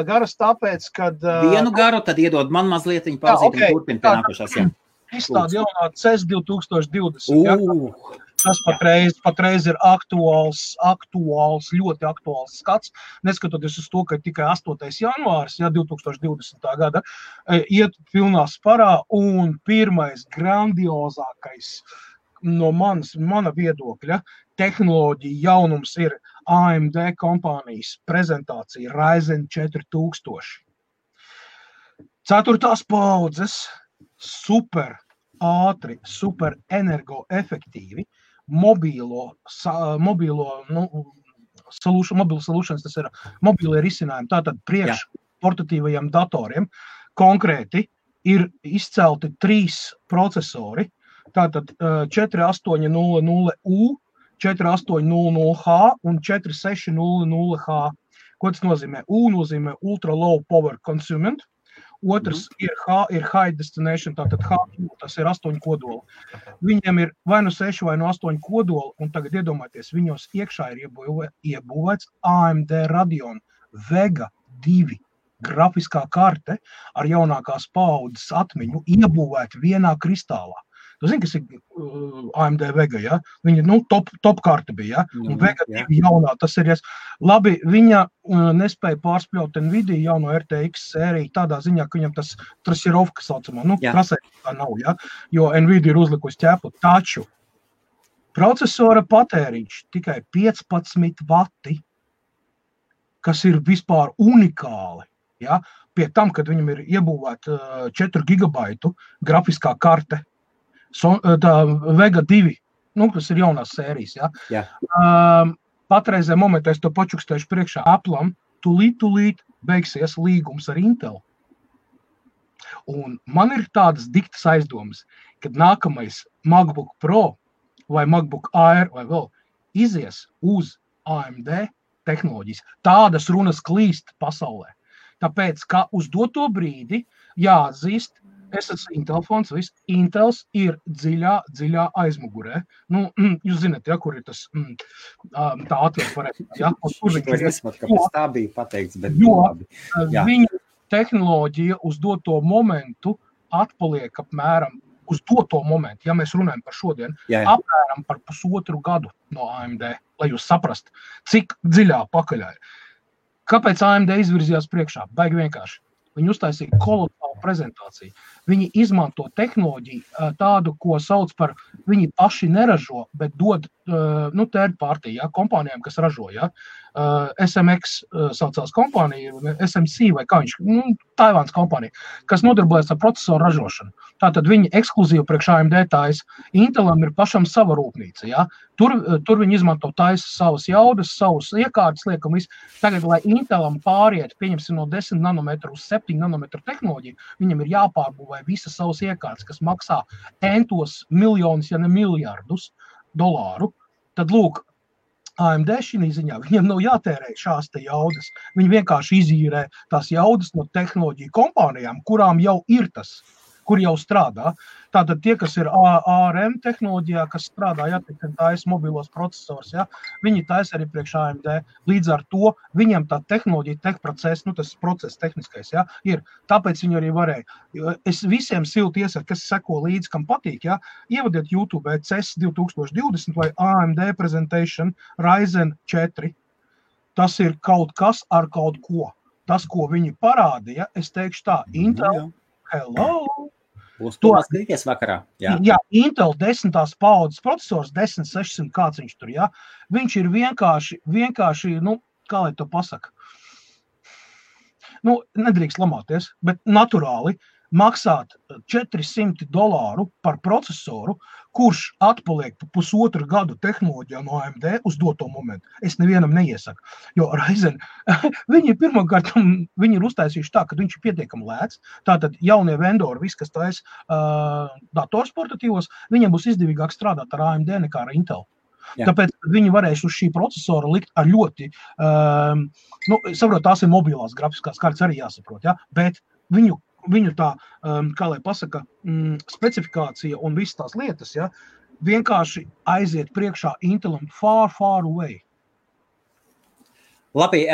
Speaker 2: Garas tāpēc, kad...
Speaker 1: Vienu garu, tad iedod man mazliet viņu pauzīt un turpin pie nākošās.
Speaker 2: Izstāda jaunā CES 2020. Tas patreiz ir aktuāls, ļoti aktuāls skats. Neskatoties uz to, ka tikai 8. janvārs, 2020. gada, iet pilnā sparā un pirmais grandiozākais no mana viedokļa tehnoloģija jaunums ir AMD kompānijas prezentācija Ryzen 4000. 4. paudzes, super ātri, super energoefektīvi, mobilo solutions, tas ir mobīlie risinājumi, tātad priekš portatīvajiem datoriem. Konkrēti ir izcelti 3 procesori, tātad 4800U, 4800H un 4600H. Ko tas nozīmē? U nozīmē Ultra Low Power Consuming, otrs ir High Destination, tātad H, tas ir 8 kodoli. Viņiem ir vai no 6 vai no 8 kodoli, un tagad iedomājieties, viņos iekšā ir iebūvēts AMD Radeon Vega 2 grafiskā karte ar jaunākās paaudzes atmiņu iebūvēta vienā kristālā. Tu zini, kas ir AMD Vega, Viņa, top karte bija, un Vega 2 jaunā, tas ir, labi, viņa nespēja pārspļaut Nvidia jauno RTX sēriju tādā ziņā, ka viņam tas trasirovka saucamā, trasē tā nav, jo Nvidia ir uzlikusi ķēpu, taču procesora patēriņš tikai 15 vati, kas ir vispār unikāli, pie tam, kad viņam ir iebūvēta 4 gigabaitu grafiskā karte, tā Vega 2, kas ir jaunās sērijas, Patreizē momentā es to pačukstēšu priekšā Apple'am, tūlīt beigsies līgums ar Intel. Un man ir tādas diktas aizdomas, kad nākamais MacBook Pro vai MacBook Air vai vēl izies uz AMD tehnoloģijas. Tādas runas klīst pasaulē. Tāpēc, ka uz doto brīdi jāatzīst, Es esmu Intel fons, viss. Intels ir dziļā aizmugurē. Nu, jūs zināt, ja, kur ir tas tā atvilkt varētu. Ja, kur
Speaker 1: Šito es nesaprotu, kāpēc tā bija pateikts, bet
Speaker 2: labi.
Speaker 1: Jā.
Speaker 2: Viņu tehnoloģija uz doto momentu atpaliek apmēram uz doto momentu, ja mēs runājam par šodien, apmēram par 1,5 gadu no AMD, lai jūs saprast, cik dziļā pakaļā ir. Kāpēc AMD izvirzījās priekšā? Baigi vienkārši. Viņi uztaisīja kolosālu prezentāciju. Viņi izmanto tehnoloģiju tādu, ko sauc par, viņi paši neražo, bet dod third party, ja, kompānijām, kas ražo. Ja. SMX saucās kompānija, SMC vai kā viņš, Taivāns kompānija, kas nodarbojas ar procesoru ražošanu. Tātad viņi ekskluzīvi priekš AMD taisa. Intelam ir pašam sava rūpnīca. Ja. Tur viņi izmanto taisa savas jaudas, savus iekārtas, liekam visu. Tagad, lai Intelam pāriet, pieņemsim no 10 nanometru uz 7 nanometru tehnoloģiju, viņam ir jāpārbūvē visas savas iekārtas, kas maksā entos miljonus, ja ne miljardus dolāru. Tad lūk, AMD šī ziņā, viņiem nav jātērē šās te jaudas. Viņi vienkārši izīrē tās jaudas no tehnoloģiju kompānijām, kurām jau ir tas, kur jau strādā. Tātad tie, kas ir ARM tehnoloģijā, kas strādā, ja, taisa mobilos procesors, ja, viņi taisa arī priekš AMD. Līdz ar to viņam tā tehnoloģija, tehprocess, tas process tehniskais, ja, ir. Tāpēc viņi arī varēja. Es visiem silti iesaku, kas seko līdzi, kam patīk, ja, ievadiet YouTube CES 2020 vai AMD Presentation Ryzen 4. Tas ir kaut kas ar kaut ko. Tas, ko viņi parādīja, es teikšu tā, Intel, hello!
Speaker 1: Būs to skatīties vakarā.
Speaker 2: Jā, Intel 10. paudzes procesors, 10600, kāds viņš tur, jā. Viņš ir vienkārši, kā lai to pasaka, nedrīkst lamāties, bet naturāli maksāt $400 par procesoru, kurš atpaliek pa 1,5 gadu tehnoloģijā no AMD uz doto momentu. Es nevienam neiesaku, jo Ryzen, viņi pirmkārt, viņi ir uztaisījuši tā, ka viņš ir pietiekami lēts, tātad jaunie vendori, viss, kas taisa datorsportatīvos, viņiem būs izdevīgāk strādāt ar AMD nekā ar Intel. Jā. Tāpēc viņi varēs uz šī procesora likt ar ļoti, saprot, tās ir mobilās grafiskās kārtas arī jāsaprot, ja? Bet viņu tā, kā lai pasaka, specifikācija un visas tās lietas, ja, vienkārši aiziet priekšā Intelam far away.
Speaker 1: Labi,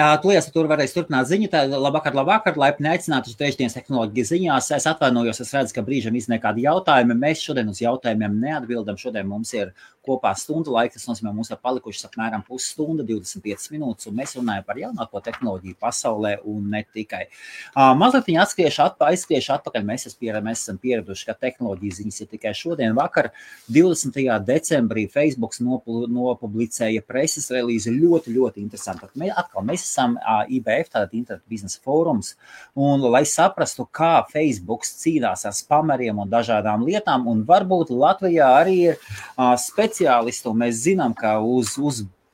Speaker 1: tur varēs turpināt ziņu. Labvakar, laipni aicināti uz trešdienas tehnoloģijas ziņās. Es atvainojos, es redzu, ka brīžam izniek kādi jautājumi. Mēs šodien uz jautājumiem neatbildam. Šodien mums ir kopā stundu laika, tas nozīmē, mums ir palikušas apmēram pusstunda, 25 minūtes, un mēs runājam par jaunāko tehnoloģiju pasaulē un ne tikai. Mazliet viņi aizskriešu atpakaļ. Mēs esam pieraduši, ka tehnoloģijas ziņas ir tikai šodien. Vakar, 20. decembrī, Facebooks nopublicēja preses relīzi ļoti, ļoti interesanti. Mēs esam IBF, tātad Internet biznesa fórums, un lai saprastu, kā Facebooks cīnās ar spameriem un dažādām lietām, un varbūt Latvijā arī ir speciālisti, un mēs zinām, ka uz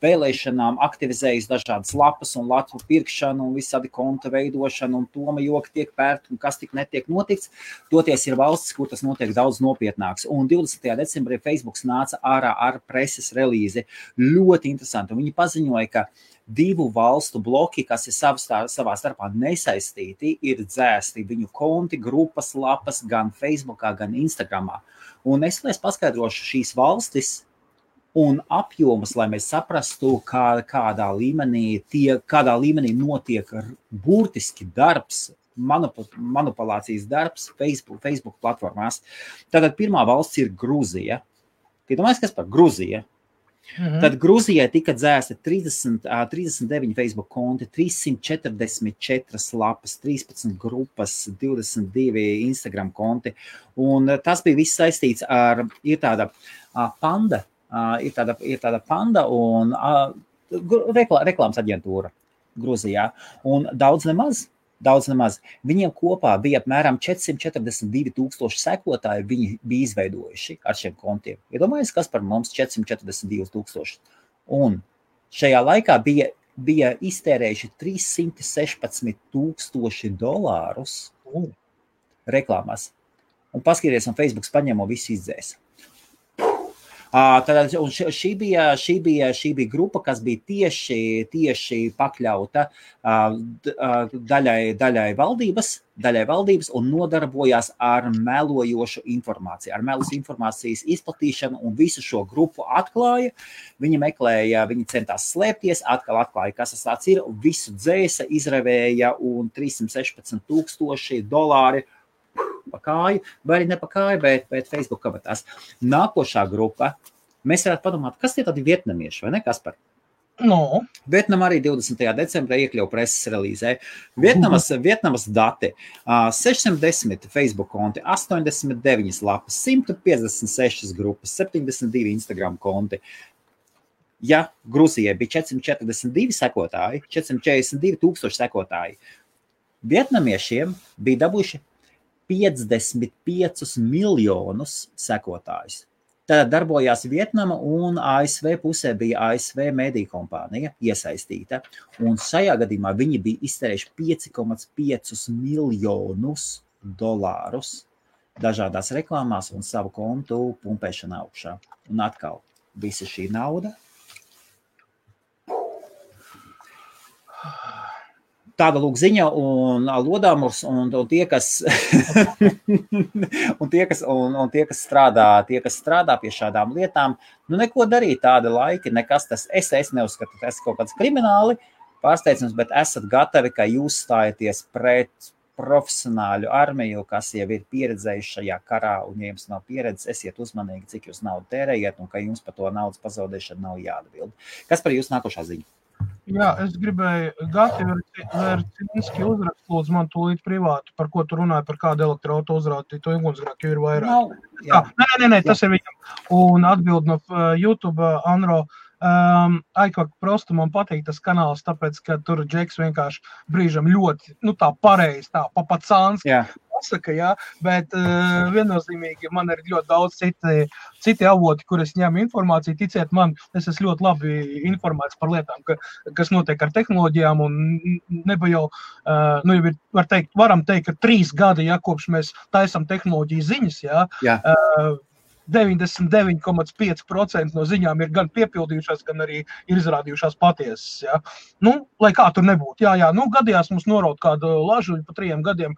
Speaker 1: vēlēšanām aktivizējas dažādas lapas un latu pirkšanu un visādi konta veidošanu un toma joki tiek pērt un kas tik netiek notikts. Toties ir valstis, kur tas notiek daudz nopietnāks. Un 20. decembrī Facebooks nāca ārā ar preses relīzi. Ļoti interesanti. Un viņi paziņoja, ka 2 valstu bloki, kas ir savā starpā nesaistīti, ir dzēsti viņu konti, grupas, lapas gan Facebookā, gan Instagramā. Un es paskaidrošu šīs valstis un apjomus, lai mēs saprastu, kādā līmenī notiek burtiski darbs, manipulācijas darbs Facebook platformās. Tātad pirmā valsts ir Grūzija. Domājies, kas par Grūzija? Tad Grūzijai tika dzēsta 39 Facebook konti, 344 lapas, 13 grupas, 22 Instagram konti. Un tas bija viss saistīts ar, ir tāda panda, ir tāda panda un reklāmas aģentūra Grūzijā. Un daudz nemaz. Viņiem kopā bija apmēram 442,000 sekotāji, viņi bija izveidojuši ar šiem kontiem. Iedomājies, kas par mums 442,000. Un šajā laikā bija iztērējuši $316,000 reklāmās. Un paskaties, un Facebooks paņēma visu izdzēs. Un šī bija grupa, kas bija tieši pakļauta daļai valdības un nodarbojās ar melojošu informāciju, ar melus informācijas izplatīšanu un visu šo grupu atklāja. Viņi centās slēpties, atkal atklāja, kas tas ir, visu dzēsa, izravēja un $316,000 pa kāju, vai arī ne pa kāju, bet Facebook kabatās. Nākošā grupa, mēs varētu padomāt, kas tie tādi vietnamieši, vai ne, Kaspar?
Speaker 2: No.
Speaker 1: Vietnama arī 20. decembrī iekļauja preses relīzē. Vietnamas dati, 610 Facebook konti, 89 lapas, 156 grupas, 72 Instagram konti. Ja Gruzijai bija 442 sekotāji, 442,000 sekotāji, vietnamiešiem bija dabūjuši 55 miljonus sekotājus. Tad darbojās Vietnama un ASV pusē bija ASV mediju kompānija iesaistīta. Un šajā gadījumā viņi bija iztērējuši $5,5 miljonus dažādās reklāmās un savu kontu pumpēšanu augšā. Un atkal, visa šī nauda. Tāda lūk ziņa un Lodāmurs un tie, kas strādā pie šādām lietām, neko darīt tāda laika, nekas tas, es neuzskatu, tas kaut kāds krimināli pārsteidzums, bet esat gatavi, ka jūs stājaties pret profesionāļu armiju, kas jau ir pieredzējuši šajā karā, un ja jums nav pieredzes, esiet uzmanīgi, cik jūs naudu tērējiet, un ka jums par to naudas pazaudēšanu nav jāatbild. Kas par jūs nākošā ziņa?
Speaker 2: Jā, es gribēju Gati Vercinski uzrakst, lūdzu man tūlīt privātu, par ko tu runāji, par kādu elektroauto uzrādīju, to ugunsgrēku, jo ir vairāk. Nē, tas ir viņam. Un atbild no YouTube, Anro, Aikvak prostu man patīk tas kanāls, tāpēc, ka tur Džeks vienkārši brīžam ļoti, tā pareizi, tā papacānski pasaka, jā, bet viennozīmīgi man ir ļoti daudz citi avoti, kur es ņemu informāciju, ticiet man, es esmu ļoti labi informēts par lietām, kas notiek ar tehnoloģijām, un neba jau, jau ir, varam teikt, ka 3 gadi, kopš mēs taisam tehnoloģiju ziņas, 99,5% no ziņām ir gan piepildījušās, gan arī ir izrādījušās patiesas, lai kā tur nebūtu, gadījās mums noraut kādu lažuļu pa 3 gadiem,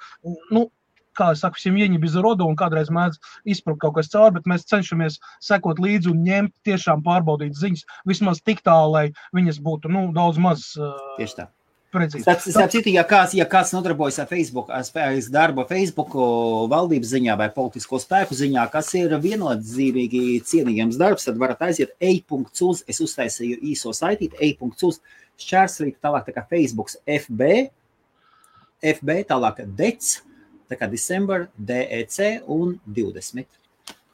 Speaker 2: kā es saku, viņi bez rodu un kādreiz mēdz izprukt kaut kas cauri, bet mēs cenšamies sekot līdzi un ņemt tiešām pārbaudīt ziņas, vismaz tik tā, lai viņas būtu, daudz maz
Speaker 1: tieši tā.
Speaker 2: Precīzi.
Speaker 1: Starp citu, ja kāds nodarbojas ar Facebook, darbu Facebook valdības ziņā vai politisko spēku ziņā, kas ir viennozīmīgi cienījams darbs, tad varat aiziet e.uz, es uztaisīju īso saitīti, e.uz, šķērslīt, tālāk tā kā Facebooks FB, tālāk DEC, tā kā December, DEC un 20.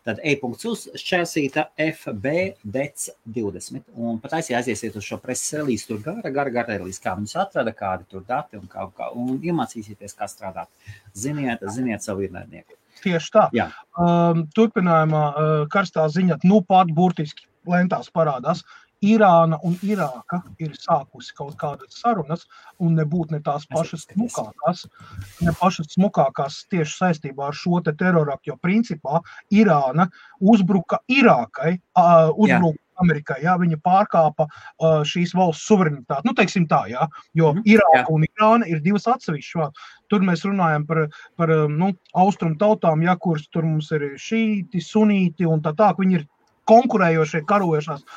Speaker 1: Tad e.uz šķērsīta FB DEC 20. Un pat aiziesiet uz šo preses relīzi, tur gara relīzi, kā viņus atrada, kādi tur dati un iemācīsieties, kā strādāt. Ziniet savu ienaidnieku.
Speaker 2: Tieši tā. Turpinājumā karstā ziņa, pat burtiski lentās parādās. Irāna un Irāka ir sākusi kaut kādas sarunas un nebūt ne tās pašas smukākās tieši saistībā ar šo te teroraktu, jo principā Irāna uzbruka Irākai, uzbruka Amerikai, viņa pārkāpa šīs valsts suverenitāti. Teiksim tā, jo Irāka un Irāna ir divas atsevišķas. Tur mēs runājam par austrumu tautām, kuras tur mums ir šīti, sunīti un tā, viņi ir konkurējošie, karojošās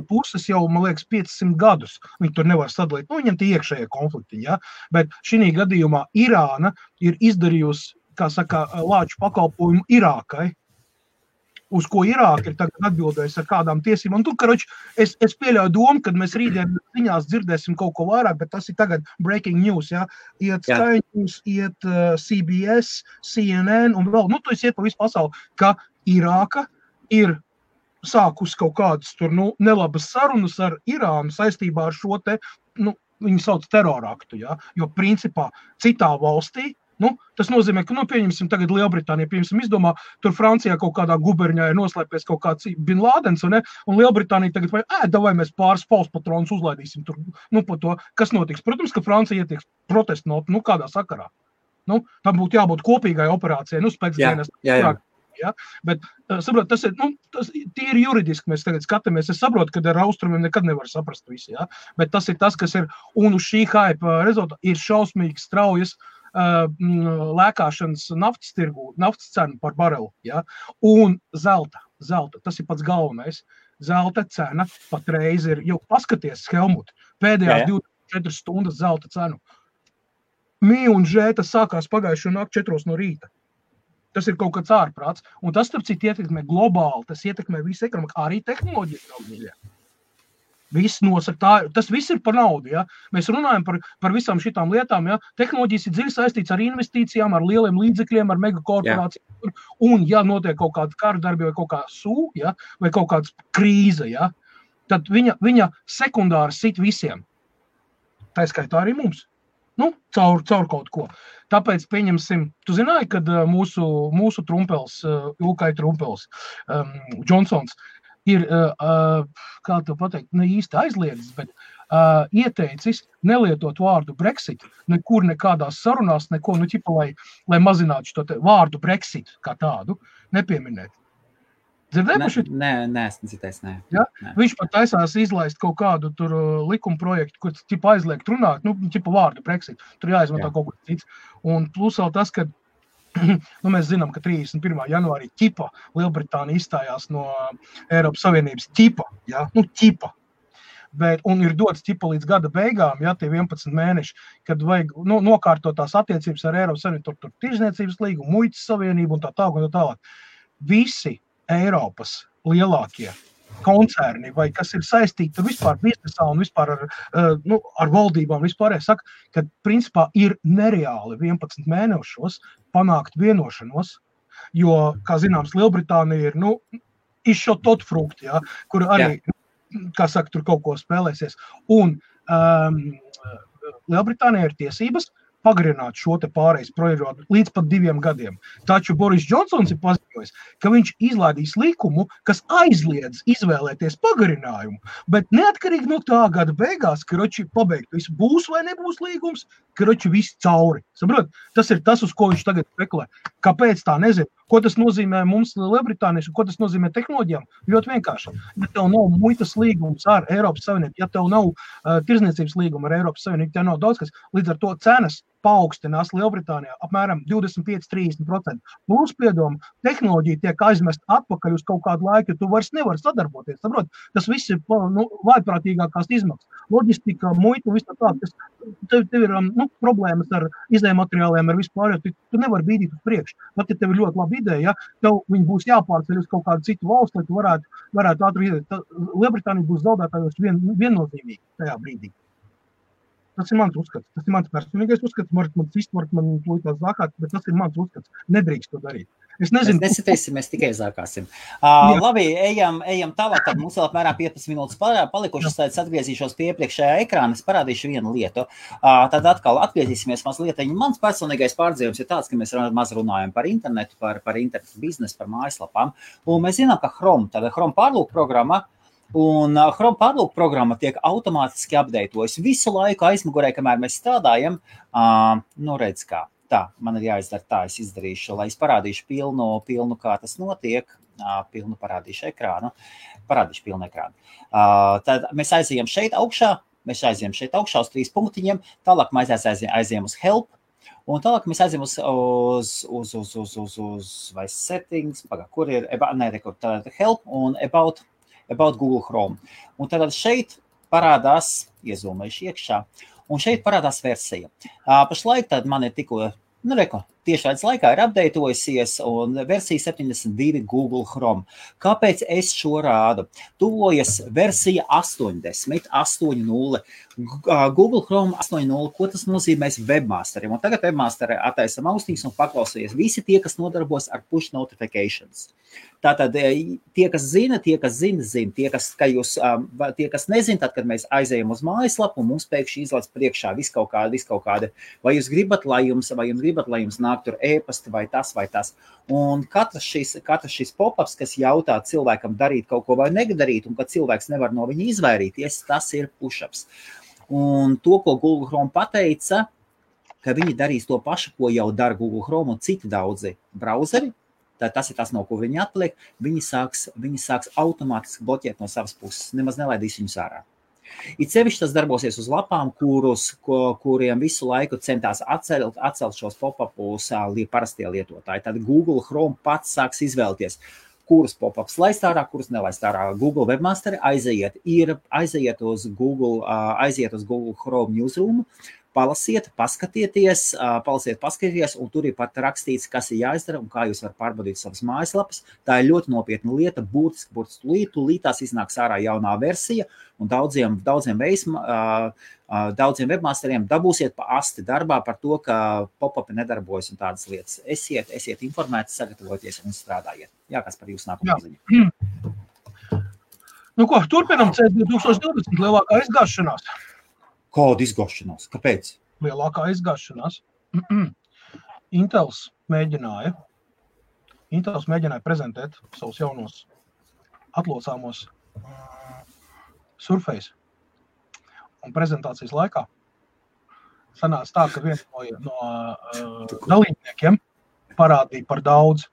Speaker 2: puses jau, man liekas, 500 gadus. Viņi tur nevar sadalīt. Viņam tie iekšējie konflikti, bet šī gadījumā Irāna ir izdarījusi, kā saka, lāču pakalpojumu Irākai, uz ko Irāka ir tagad atbildējusi ar kādām tiesībām. Un tur, es pieļauju domu, kad mēs rītdien ziņās dzirdēsim kaut ko vairāk, bet tas ir tagad breaking news, Iet Sky News, iet CBS, CNN un vēl, tu iet pa visu pasauli, ka Irāka ir sākus kaut kādas tur, nelabas sarunas ar Irānu saistībā ar šo te, viņi sauc teroraktu, jo principā citā valstī, tas nozīmē, ka, pieņemsim tagad Lielbritānija, izdomā, tur Francijā kaut kādā guberņā ir noslēpies kaut kāds Bin Lādens, un Lielbritānija tagad vai mēs pāris pauspatrons uzlaidīsim tur, par to, kas notiks. Protams, ka Francija ietieks protestu notu, kādā sakarā. Tam būtu jābūt kopīgai operācijai, spēcdienas. Ja? Bet, saprot, tas ir, tas tīri juridiski mēs tagad skatāmies. Es saprotu, ka ar austrumiem nekad nevar saprast visi, ja? Bet tas ir tas, kas ir, un uz šī hype rezultātā ir šausmīgi straujas lēkāšanas naftas tirgu, naftas cenu par barelu, ja? Un zelta, tas ir pats galvenais. Zelta cena patreiz ir, jau paskaties, Helmut, pēdējās 24 stundas zelta cenu. Mī un žē, tas sākās pagājušo nakti 4 no rīta. Tas ir kaut kāds ārprāts. Un tas, starp citu, ietekmē globāli, tas ietekmē visu ekonomiku, arī tehnoloģiju. Viss nosaka, tas viss ir par naudu. Ja? Mēs runājam par visām šitām lietām. Ja? Tehnoloģijas ir dziļi saistīts ar investīcijām, ar lieliem līdzekļiem, ar megakorporācijām. Un, ja notiek kaut kāda kara darbi vai kaut kā ja? Vai kaut kāda krīze, ja? Tad viņa sekundāri sit visiem. Tā skaitā arī mums. Caur kaut ko. Tāpēc pieņemsim, tu zināji, kad mūsu trumpels, Ilkai trumpels, Džonsons, ir, kā to pateikt, ne īsti aizliedzis, bet ieteicis nelietot vārdu Brexit, nekur nekādās sarunās, neko, lai mazinātu šo vārdu Brexit kā tādu, nepieminēt. Dzirdēji par šit?
Speaker 1: Nē, esmu citējis, nē.
Speaker 2: Ja? Viņš pat taisās izlaist kaut kādu tur likuma projektu, kur aizliegt runāt, vārdu Brexit, tur jāizmanto kaut kas cits. Un plus vēl tas, ka mēs zinām, ka 31. janvārī Lielbritānija izstājās no Eiropas Savienības ja? Un ir dots līdz gada beigām, ja, tie 11 mēneši, kad vajag nokārtot tās attiecības ar Eiropas Savienību, tur tirzniecības līgumu, muitas savienību un tā tālāk. Visi Eiropas lielākie koncerni, vai kas ir saistīti vispār biznesā un vispār ar valdībām vispār, saka, ka principā ir nereāli 11 mēnešos panākt vienošanos, jo, kā zināms, Lielbritānija ir, izšotot frukti, ja, kur arī, kā saka, tur kaut ko spēlēsies. Un Lielbritānija ir tiesības pagarināt šo te pārejas projektu līdz pat 2 gadiem. Taču Boris Džonsons ir paziņojis, ka viņš izlaidīs likumu, kas aizliedz izvēlēties pagarinājumu, bet neatkarīgi no tā gada beigās, ka pabeigt visu būs vai nebūs līgums, ka viss cauri. Saprot? Tas ir tas, uz ko viņš tagad spekulē. Kāpēc tā nezinu? Ko tas nozīmē mums Lielbritānijas un ko tas nozīmē tehnoloģijām? Ļoti vienkārši. Ja tev nav muitas līgums ar Eiropas Savienību, ja tev nav tirzniecības līguma ar Eiropas Savienību, tev nav daudz kas, līdz ar to cenas paaugstinās Lielbritānijā apmēram 25–30%. Plus, piedoma, tehnoloģija tiek aizmest atpakaļ uz kaut kādu laiku, jo tu vairs nevari sadarboties. Saprot? Tas viss ir vājprātīgākās izmaksas. Loģistika, muita, viss tā, tev ir problēmas ar izējmateriāliem, ar vispār, jo tu nevari bīdīt uz priekšu. Pat ja tev ir ļoti laba ideja, ja, tev viņi būs jāpārceļ uz kaut kādu citu valstu, lai tu varētu ātri izdēt. Lielbritānija būs zaudētājos viennozīmīgi tajā brīdī. Tas ir mans uzskats. Tas ir mans personīgais uzskats. Man plūtās zākāt, bet tas ir mans uzskats. Nedrīkst to darīt. Es nezinu.
Speaker 1: Mēs nesitēsim, mēs tikai zākāsim. Labi, ejam tālāk, tad mums vēl apmēram 15 minūtes palikušas, tad atgriezīšos pie iepriekšējā ekrāna, es parādīšu vienu lietu. Tad atkal atgriezīsimies mazliet. Mans personīgais pārdzīvums ir tāds, ka mēs maz runājam par internetu, par internetu biznesu, par mājaslapām. Un mēs zinām, ka Chrome pārlūk programma, un Chrome pārlūk programma tiek automātiski updatējusi visu laiku aizmugurē, kamēr mēs strādājam. Redz kā. Tā, man ir jāizdara tā, es izdarīšu, lai es parādīšu pilnu kā tas notiek, pilnu parādīšu ekrānu, pilnu ekrānu. Tad mēs aizējam šeit augšā uz 3 punktiņiem, tālāk mēs aizējam uz help, un tālāk mēs aizējam uz vai settings, kur ir, help un about Google Chrome. Un tad šeit parādās, iezūmējuši iekšā, un šeit parādās versija. Pašlaik tad man ir tikko, tiešraides laikā ir updatējusies un versija 72 Google Chrome. Kāpēc es šo rādu? Tuvojas versija 80, 8.0. Google Chrome 8.0, ko tas nozīmēs webmasteriem? Un tagad webmasteri attaisam austiņas un paklausījies visi tie, kas nodarbojas ar push notifications. Tātad tie, kas zina, tie, kas nezina, tad, kad mēs aizējam uz mājaslapu un mums pēkšņi izlaiž priekšā viss kaut kādi, vai jūs gribat, lai jums nāk tur e-pasti vai tas. Un katrs šis pop-ups, kas jautā cilvēkam darīt kaut ko vai nedarīt, un kad cilvēks nevar no viņa izvairīties, tas ir push-ups. Un to, ko Google Chrome pateica, ka viņi darīs to pašu, ko jau dara Google Chrome un citi daudzi brauzeri, tas ir tas, no ko viņi atliek, viņi sāks automātiski bloķēt no savas puses, nemaz nelaidīs viņus ārā. It sevišķi tas darbosies uz lapām, kuriem visu laiku centās atcelt šos pop-upus parastie lietotāji. Tad Google Chrome pats sāks izvēlēties, kurus pop-ups laist ārā, kurus nelaist ārā. Google webmasteri aiziet uz Google Chrome newsroom, palasiet, paskatieties, un tur ir pat rakstīts, kas ir jāizdara un kā jūs varat pārbaudīt savas mājaslapas. Tā ir ļoti nopietna lieta, būtiski tūlīt tās iznāks ārā jaunā versija, un daudziem webmasteriem dabūsiet pa asti darbā par to, ka pop-upi nedarbojas un tādas lietas. Esiet informēti, sagatavoties un strādājiet. Jā, kas par jūsu nākamā ziņu?
Speaker 2: Nu ko, turpinam C2020 lielākā izgāšanās.
Speaker 1: Kāda izgāšanās? Kāpēc?
Speaker 2: Lielākā izgāšanās. Intels mēģināja prezentēt savus jaunos atlocāmos Surface. Un prezentācijas laikā sanāca tā, ka viens no dalībniekiem parādīja par daudz.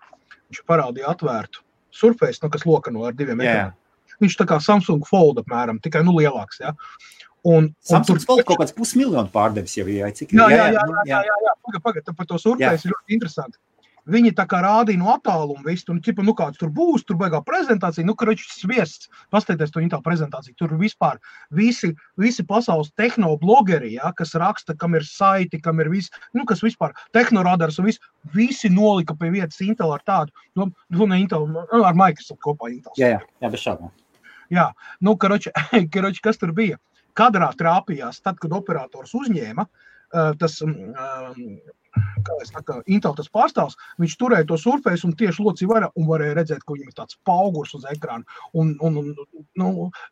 Speaker 2: Viņš parādīja atvērtu Surface, kas lokano ar 2 ekrāniem. Viņš tā kā Samsung Fold apmēram, tikai lielāks, ja.
Speaker 1: Samsungs Fold kaut kāds 500 000 pārdevis jau ir, cik?
Speaker 2: Jā. Pagad, par to Surface ir ļoti interesanti. Viņi tā kā rādīja no attāluma visu, un kāds tur būs, tur baigā prezentācija, sviests, pasteities to Intel prezentāciju, tur vispār visi pasaules tehnoblogeri, ja, kas raksta, kam ir saiti, kam ir visi, kas vispār tehnoradars un visi nolika pie vietas Intel ar tādu, Intel, ar Microsoft kopā Intel.
Speaker 1: Jā, bez šādām.
Speaker 2: Jā, kas tur bija? Kadrā trāpījās, tad, kad operators uzņēma, tas, Intel tas pārstāvs, viņš turēja to Surface un tieši locīja vaļā un varēja redzēt, ka viņam ir tāds paugurs uz ekrāna un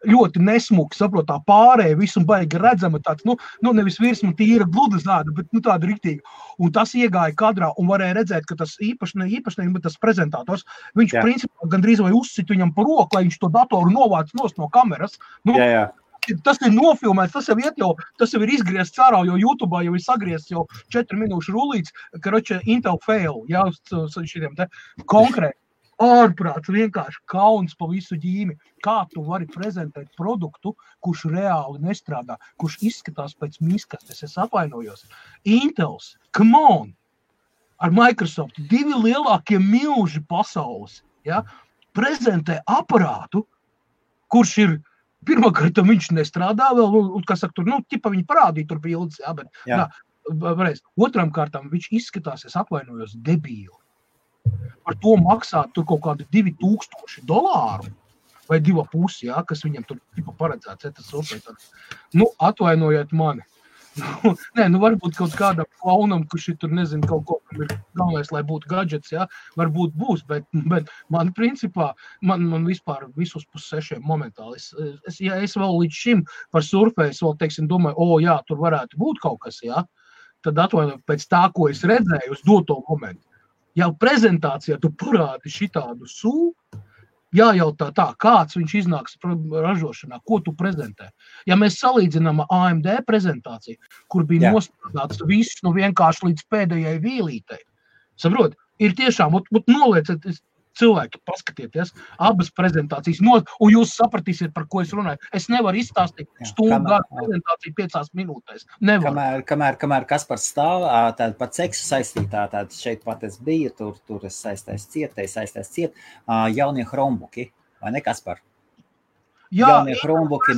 Speaker 2: ļoti nesmuki, saprot, tā pārēja visu un baigi redzama tāds, nevis virsma tīra gluda zāda, bet tāda riktīgi. Un tas iegāja kadrā un varēja redzēt, ka tas īpašnieks, bet tas prezentators, viņš principā gandrīz vai uzsit viņam pa roku, lai viņš to datoru novāc nost no kameras.
Speaker 1: Jā.
Speaker 2: Tas ir nofilmēts, tas jau ir izgriezts ārā, jo YouTube jau ir sagriezts jau 4 minūšu rullīts, Intel fail, jā, uz šitiem te konkrēti. Ārprāts, vienkārši kauns pa visu ģīmi. Kā tu vari prezentēt produktu, kurš reāli nestrādā, kurš izskatās pēc miskastes, es atvainojos. Intels, come on, ar Microsoft, 2 lielākie milži pasaules, ja, prezentē aparātu, kurš ir pirmkārt, viņš nestrādā vēl, tur, viņi parādīja tur bildes, jā, bet, otram kārtām viņš izskatās, es atvainojos, debīli. Par to maksāt tur kaut kādi $2000 vai 2,5, jā, kas viņam tur paredzēts, tas Surface. Atvainojiet mani. Varbūt kaut kādam klaunam, kurš ir tur, nezinu, kaut ko, ir galvenais, lai būtu gadgets, jā, varbūt būs, bet man principā, man vispār visus 5-6 momentāli. Ja es vēl līdz šim par Surface vēl, teiksim, domāju, jā, tur varētu būt kaut kas, jā, tad atvainojot pēc tā, ko es redzēju uz doto momentu. Jau prezentācijā tu parādi šitādu jājautā tā, kāds viņš iznāks ražošanā, ko tu prezentē. Ja mēs salīdzinām AMD prezentāciju, kur bija nostrādāts viss vienkārši līdz pēdējai vīlītei, saprot, ir tiešām, nolieciet cilvēki, paskatieties, abas prezentācijas, un jūs sapratīsiet, par ko es runāju. Es nevaru izstāstīt stundu prezentāciju 5 minūtēs. Nevaru.
Speaker 1: Kamēr Kaspars stāv, tāda par seksu saistītā, tāda šeit pat es biju, tur es saistēs ciet, jaunie Chromebooki, vai ne, Kaspar? Jaunie Chromebooki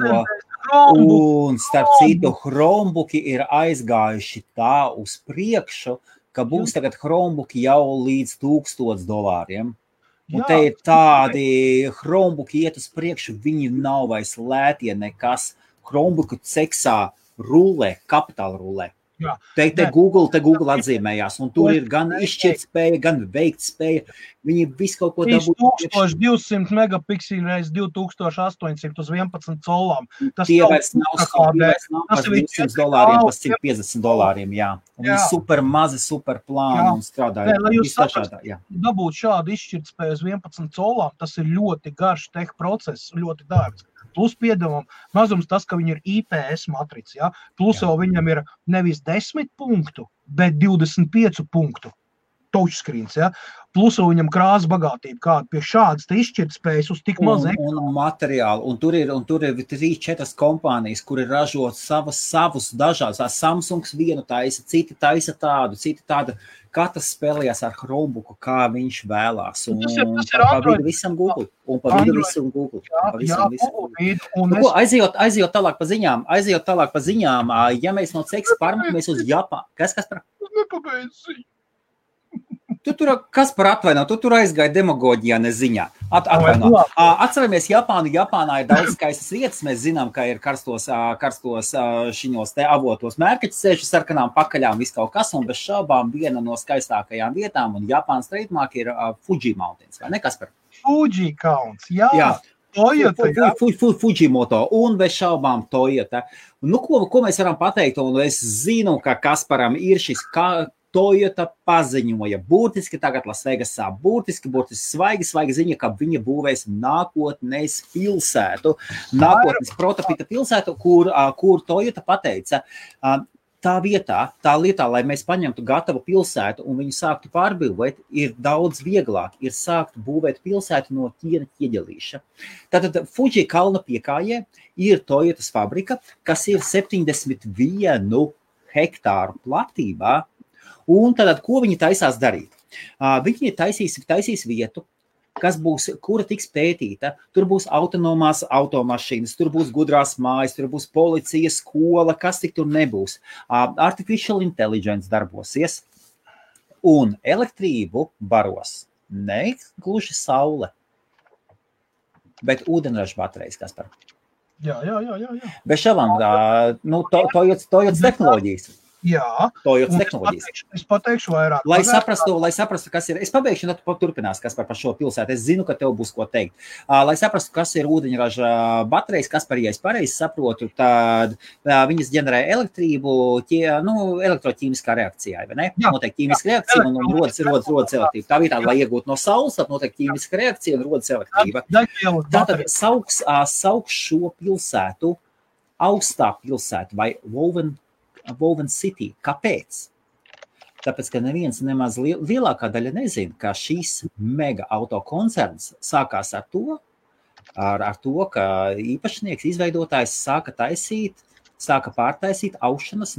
Speaker 1: un starp citu, Chromebooki ir aizgājuši tā uz priekšu, ka būs tagad Chromebooki jau līdz $1000. Un te ir tādi Chromebooki iet uz priekšu, viņi nav vairs lētie nekas. Chromebooku ceksā rulē, kapitāla rulē. Te Google atzīmējās, un tur ir gan izšķirt spēja, gan veikt spēja. Viņi visu kaut ko dabūt.
Speaker 2: 1200 megapikseli reiz 2800 uz 11 colām.
Speaker 1: Tie vairs nav par $200, par $150, jā. Un viņi super mazi, super plāni un strādāja.
Speaker 2: Lai jūs dabūt šādu izšķirt spēju uz 11 colām, tas ir ļoti garš tech process, ļoti dārgs. Plus piedevām mazums tas, ka viņi ir IPS matrica, ja? Plus vēl viņam ir nevis 10 punktu, bet 25 punktu touchscreens, ja? Plus viņam krāsa bagātība, kāda pie šādas te izšķirtspējas uz tik maz
Speaker 1: un materiāli, un tur ir 3-4 kompānijas, kuri ražo savus dažādas. Samsungs vienu taisa, citi taisa tādu, citi tādu. Katrs spēlējās ar Chromebooku, kā viņš vēlās. Un
Speaker 2: tas ir
Speaker 1: pa
Speaker 2: Android.
Speaker 1: vidu visam Google. Un pa vidu visam Google.
Speaker 2: Jā,
Speaker 1: Aizejot tālāk pa ziņām, ja mēs no CEX pārmakamies uz Japānu. Kas par?
Speaker 2: Nepabeidz ziņu.
Speaker 1: Kas par atvaino? Tu tur aizgāja demagoģijā neziņā. Atvaino. Atceramies Japānu. Japānā ir daudz skaistas vietas. Mēs zinām, ka ir karstos šiņos te avotos mērķi ceļu sarkanām pakaļām, viss kaut kas, un bez šaubām viena no skaistākajām vietām, un Japānas trademark ir Fuji Mountains, vai ne, kas par?
Speaker 2: Fuji Counts, jā. Toyota, jā.
Speaker 1: Fujimoto, un bez šaubām Toyota. Nu, ko mēs varam pateikt, un es zinu, ka Kasparam ir šis Toyota paziņoja burtiski tagad Lasvegasā, burtiski svaigi ziņa, ka viņa būvēs nākotnes pilsētu, nākotnes prototipa pilsētu, kur Toyota pateica, tā lietā, lai mēs paņemtu gatavu pilsētu un viņu sāktu pārbūvēt, ir daudz vieglāk, ir sākt būvēt pilsētu no ķiena ķieģelīša. Tātad Fuji kalna piekājē ir Toyotas fabrika, kas ir 71 hektāru platībā. Un tad, ko viņi taisās darīt? Viņi taisīs vietu, kura tiks pētīta. Tur būs autonomās automašīnas, tur būs gudrās mājas, tur būs policija, skola, kas tik tur nebūs. Artificial intelligence darbosies un elektrību baros ne gluži saule, bet ūdenraža baterijas, kas par.
Speaker 2: Jā.
Speaker 1: Bez šabām, Toyotas tehnoloģijas.
Speaker 2: Jā,
Speaker 1: Toyotas tehnoloģijas.
Speaker 2: Es pateikšu vairāk.
Speaker 1: Lai saprastu, kas ir, es pabeigšu, un tad turpinās, kas par šo pilsētu. Es zinu, ka tev būs ko teikt. Lai saprastu, kas ir ūdeņraža baterijas, kas par, ja es pareizi saprotu, tad viņas ģenerē elektrību, elektroķīmiskā reakcijā, vai ne? Notiek ķīmiska reakcija un rodas elektrība. Tā vietā, lai iegūtu no saules, tad notiek ķīmiska reakcija un rodas elektrība. Tātad sauks šo pilsētu, augstā pilsētu vai Woven City. Kāpēc? Tāpēc, ka neviens nemaz lielākā daļa nezina, ka šīs mega autokoncerns sākās ar to, ka īpašnieks, izveidotājs sāka pārtaisīt aušanas,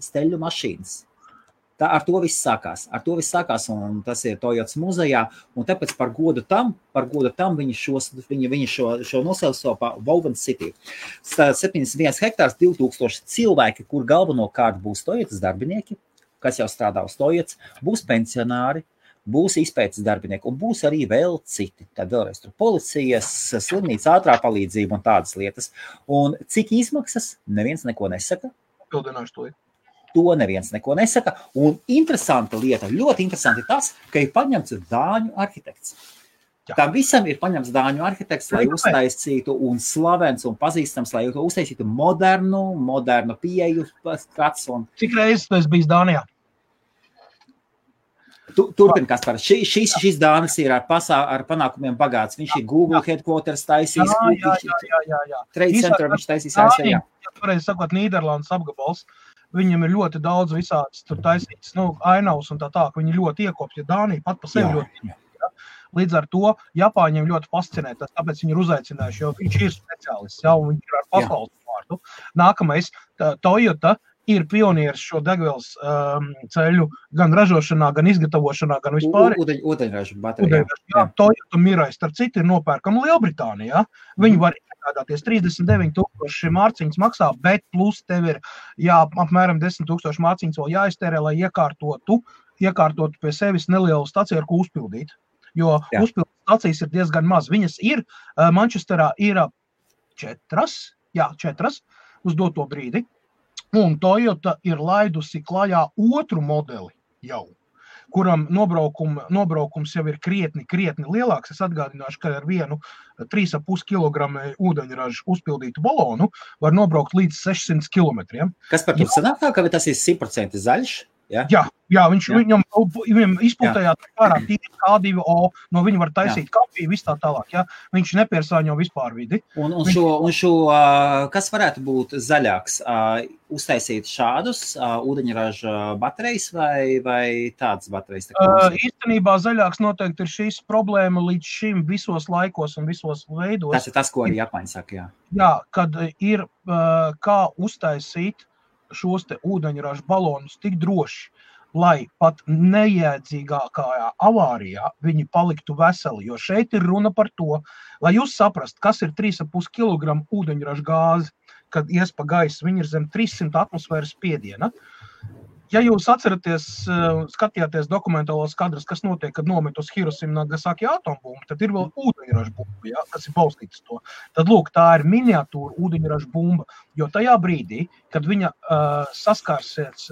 Speaker 1: steļu mašīnas. Ar to viss sākās, un tas ir Toyotas muzejā, un tāpēc par godu tam viņi šo nosauca par Woven City. 71 hektārs, 2000 cilvēki, kur galvenokārt būs Toyotas darbinieki, kas jau strādā uz Toyotas, būs pensionāri, būs izpētes darbinieki, un būs arī vēl citi. Tad vēlreiz tur policijas, slimnīca, ātrā palīdzība un tādas lietas. Un cik izmaksas, neviens neko nesaka.
Speaker 2: Pildināšu to.
Speaker 1: To neviens neko nesaka. Un interesanta lieta, ļoti interesanti tas, ka ir paņemts dāņu arhitekts. Tam visam ir paņemts dāņu arhitekts, lai uztaisītu un slavens un pazīstams, lai uztaisītu modernu pieeju skats.
Speaker 2: Cik reizes tu esi bijis Dānijā?
Speaker 1: Turpin, Kaspar. Šis Dānis ir ar panākumiem bagāts. Viņš ir Google headquarters taisīs. Trade center viņš taisīs ASV.
Speaker 2: Pareizi sakot, Nīderlandes apgabals. Viņam ir ļoti daudz visādas tur taisītas, ainavas un tā, ka viņi ļoti iekopja Dāniju pat pa sevi ļoti. Līdz ar to Japāņiem ļoti fascinē tas, tāpēc viņi ir uzaicinājuši, jo viņš ir speciālists, un viņš ir ar pasaules vārdu. Nākamais, Toyota ir pionieris šo degvielas ceļu gan ražošanā, gan izgatavošanā, gan vispār.
Speaker 1: Ūdeņražu baterija.
Speaker 2: Toyota Mirai, starp citu, ir nopērkama Lielbritānijā. Viņi var iegādāties 39,000 mārciņas maksā, bet plus tev ir apmēram 10,000 mārciņas vēl jāiztērē, lai iekārtotu pie sevis nelielu staciju, ar ko uzpildīt. Jo uzpildīt stacijas ir diezgan maz. Viņas ir, Manchesterā ir 4 uz doto brīdi. Un Toyota ir laidusi klajā otru modeli jau, kuram nobraukums jau ir krietni lielāks. Es atgādināšu, ka ar vienu 3,5 kg ūdeņražu uzpildītu balonu var nobraukt līdz 600 km.
Speaker 1: Kas par to sanāk tā, ka tas ir 100% zaļš? Ja?
Speaker 2: Jā, viņam izpūtējāt ārā K2O, no viņa var taisīt kafiju, viss tā tālāk, ja? Viņš nepiesāņo vispār vidi.
Speaker 1: Un šo, kas varētu būt zaļāks, uztaisīt šādus ūdeņraža baterijas vai tādas baterijas?
Speaker 2: Īstenībā zaļāks noteikti ir šīs problēma līdz šim visos laikos un visos veidos.
Speaker 1: Tas ir tas, ko arī Japāņi saka, jā.
Speaker 2: Jā, kad ir kā uztaisīt šos te ūdeņraža balonus tik droši, lai pat nejēdzīgākajā avārijā viņi paliktu veseli, jo šeit ir runa par to, lai jūs saprast, kas ir 3,5 kg ūdeņraža gāzi, kad ies pa gaisu, viņi ir zem 300 atmosfēras spiediena. Ja jūs atceraties, skatījāties dokumentālos kadrus, kas notiek, kad nomet uz Hirosima Nagasaki atombumbu, tad ir vēl ūdeņraža bumba, ja, kas ir balstīts to. Tad, lūk, tā ir miniatūra ūdeņraža bumba, jo tajā brīdī, kad viņa saskārsies